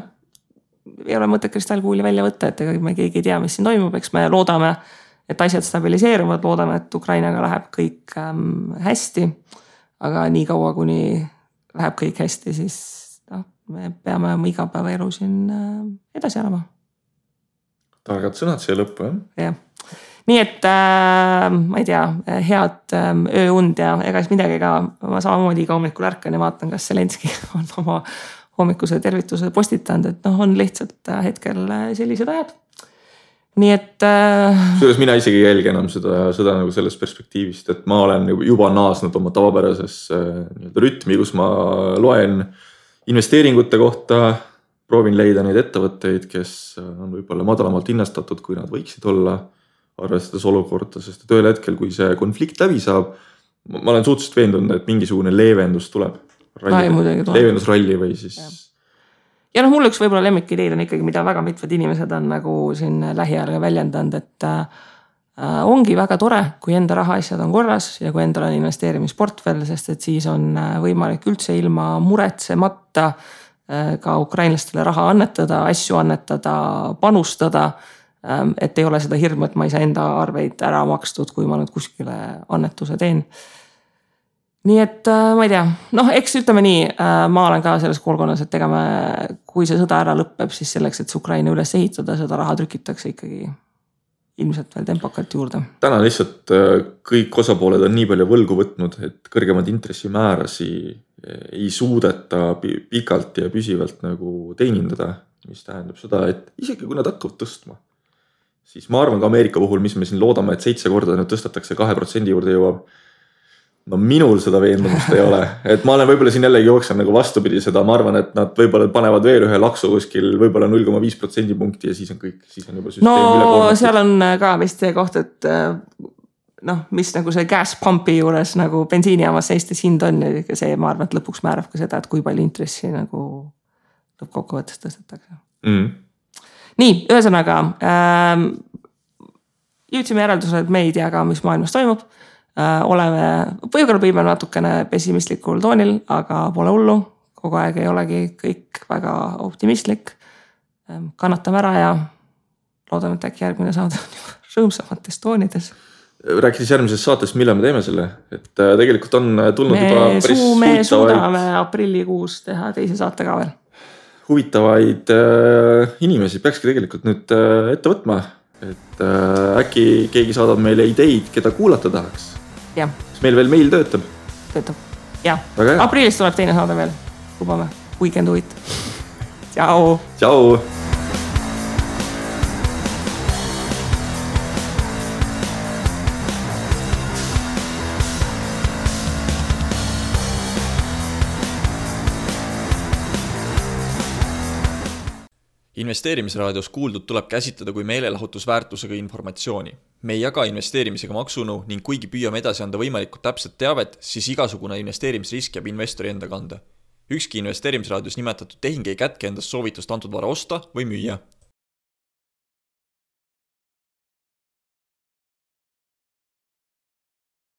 ei ole mõtet kristallkuuli välja võtta, et ega me keegi ei tea, mis siin toimub, eks me loodame, et asjad stabiliseeruvad, loodame, et Ukrainaga läheb kõik hästi, aga nii kaua, kuni läheb kõik hästi, siis me peame oma igapäevaelu siin edasi elama. Targad sõnad siia lõppu, jah? Nii et ma ei tea, head ööund ja ega siis midagi ka, ma samamoodi iga hommikul ärkan ja vaatan, kas Zelenski on oma hommikuse tervituse postitanud, et on lihtsalt hetkel sellised ajad. Nii et Selles mina isegi ei jälgi enam seda nagu sellest perspektiivist, et ma olen juba naasnud oma tavapärases rütmi, kus ma loen investeeringute kohta, proovin leida neid ettevõtteid, kes on võib-olla madalamalt hinnastatud, kui nad võiksid olla, arvestades olukorda, sest et ühel hetkel, kui see konflikt läbi saab, ma olen suhteliselt veendunud, et mingisugune leevendus tuleb. Leevendusralli või siis. Ja mul üks võib-olla lemmikideid on ikkagi, mida väga mitmed inimesed on nagu siin lähiajal väljendanud, et ongi väga tore, kui enda rahaasjad on korras ja kui endal on investeerimisportfell, sest et siis on võimalik üldse ilma muretsemata ka ukrainlastele raha annetada, asju annetada, panustada, et ei ole seda hirmu, et ma ei saa enda arveid ära makstud, kui ma nüüd kuskile annetuse teen. Nii et ma ei tea, eks ütleme nii, ma olen ka selles koolkonnas, et kui see sõda ära lõpeb, siis selleks, et see Ukraina üles ehitada, seda raha trükitakse ikkagi ilmselt veel tempokalt juurde. Täna lihtsalt kõik osapooled on nii palju võlgu võtnud, et kõrgemad intressimäärasi ei suudeta pikalt ja püsivalt nagu teenindada, mis tähendab seda, et isegi kui nad hakkavad tõstma, siis ma arvan ka Ameerika puhul, mis me siin loodame, et 7 korda nüüd tõstetakse 2% juurde jõuab. Minul seda veendumust ei ole, et ma olen võib-olla siin jällegi jooksen nagu vastupidi seda, ma arvan, et nad võib-olla panevad veel ühe laksu kuskil võib-olla 0,5% punkti ja siis on kõik, siis on juba süsteem üle koormatud. Seal on ka vist see koht, et mis nagu see gas pumpi juures nagu bensiinijaamas Eestis hind on ja see ma arvan, et lõpuks määrab ka seda, et kui palju intressi nagu lõppkokkuvõttes tõstetakse. Nii, ühesõnaga jõudsime järeldusele, et me ei tea ka, mis maailmas toimub. Oleme võib-olla natukene pessimistlikul toonil, aga pole hullu. kogu aeg ei olegi kõik väga optimistlik. Kannatame ära ja loodame, et äkki järgmine saade on juba rõõmsamates toonides. Rääkides järgmisest saatest, millal me teeme selle? Et tegelikult on tulnud juba päris me suudame aprillikuus teha teise saate ka veel. Huvitavaid inimesi peakski tegelikult nüüd ette võtma. Et äkki keegi saadab meile ideid, keda kuulata tahaks. Ja. Kas meil veel meil töötab? Töötab, jah. Aprillis tuleb teine saade veel. Lubame. Weekend uit. Tšau. Tšau. Investeerimisraadios kuuldud tuleb käsitleda kui meelelahutusväärtusega informatsiooni. Me ei jaga investeerimisega maksunõu ning kuigi püüame edasi anda võimalikult täpset teavet, siis igasugune investeerimisrisk jääb investori enda kanda. Ükski investeerimisraadios nimetatud tehing ei kätke endast soovitust antud vara osta või müüa.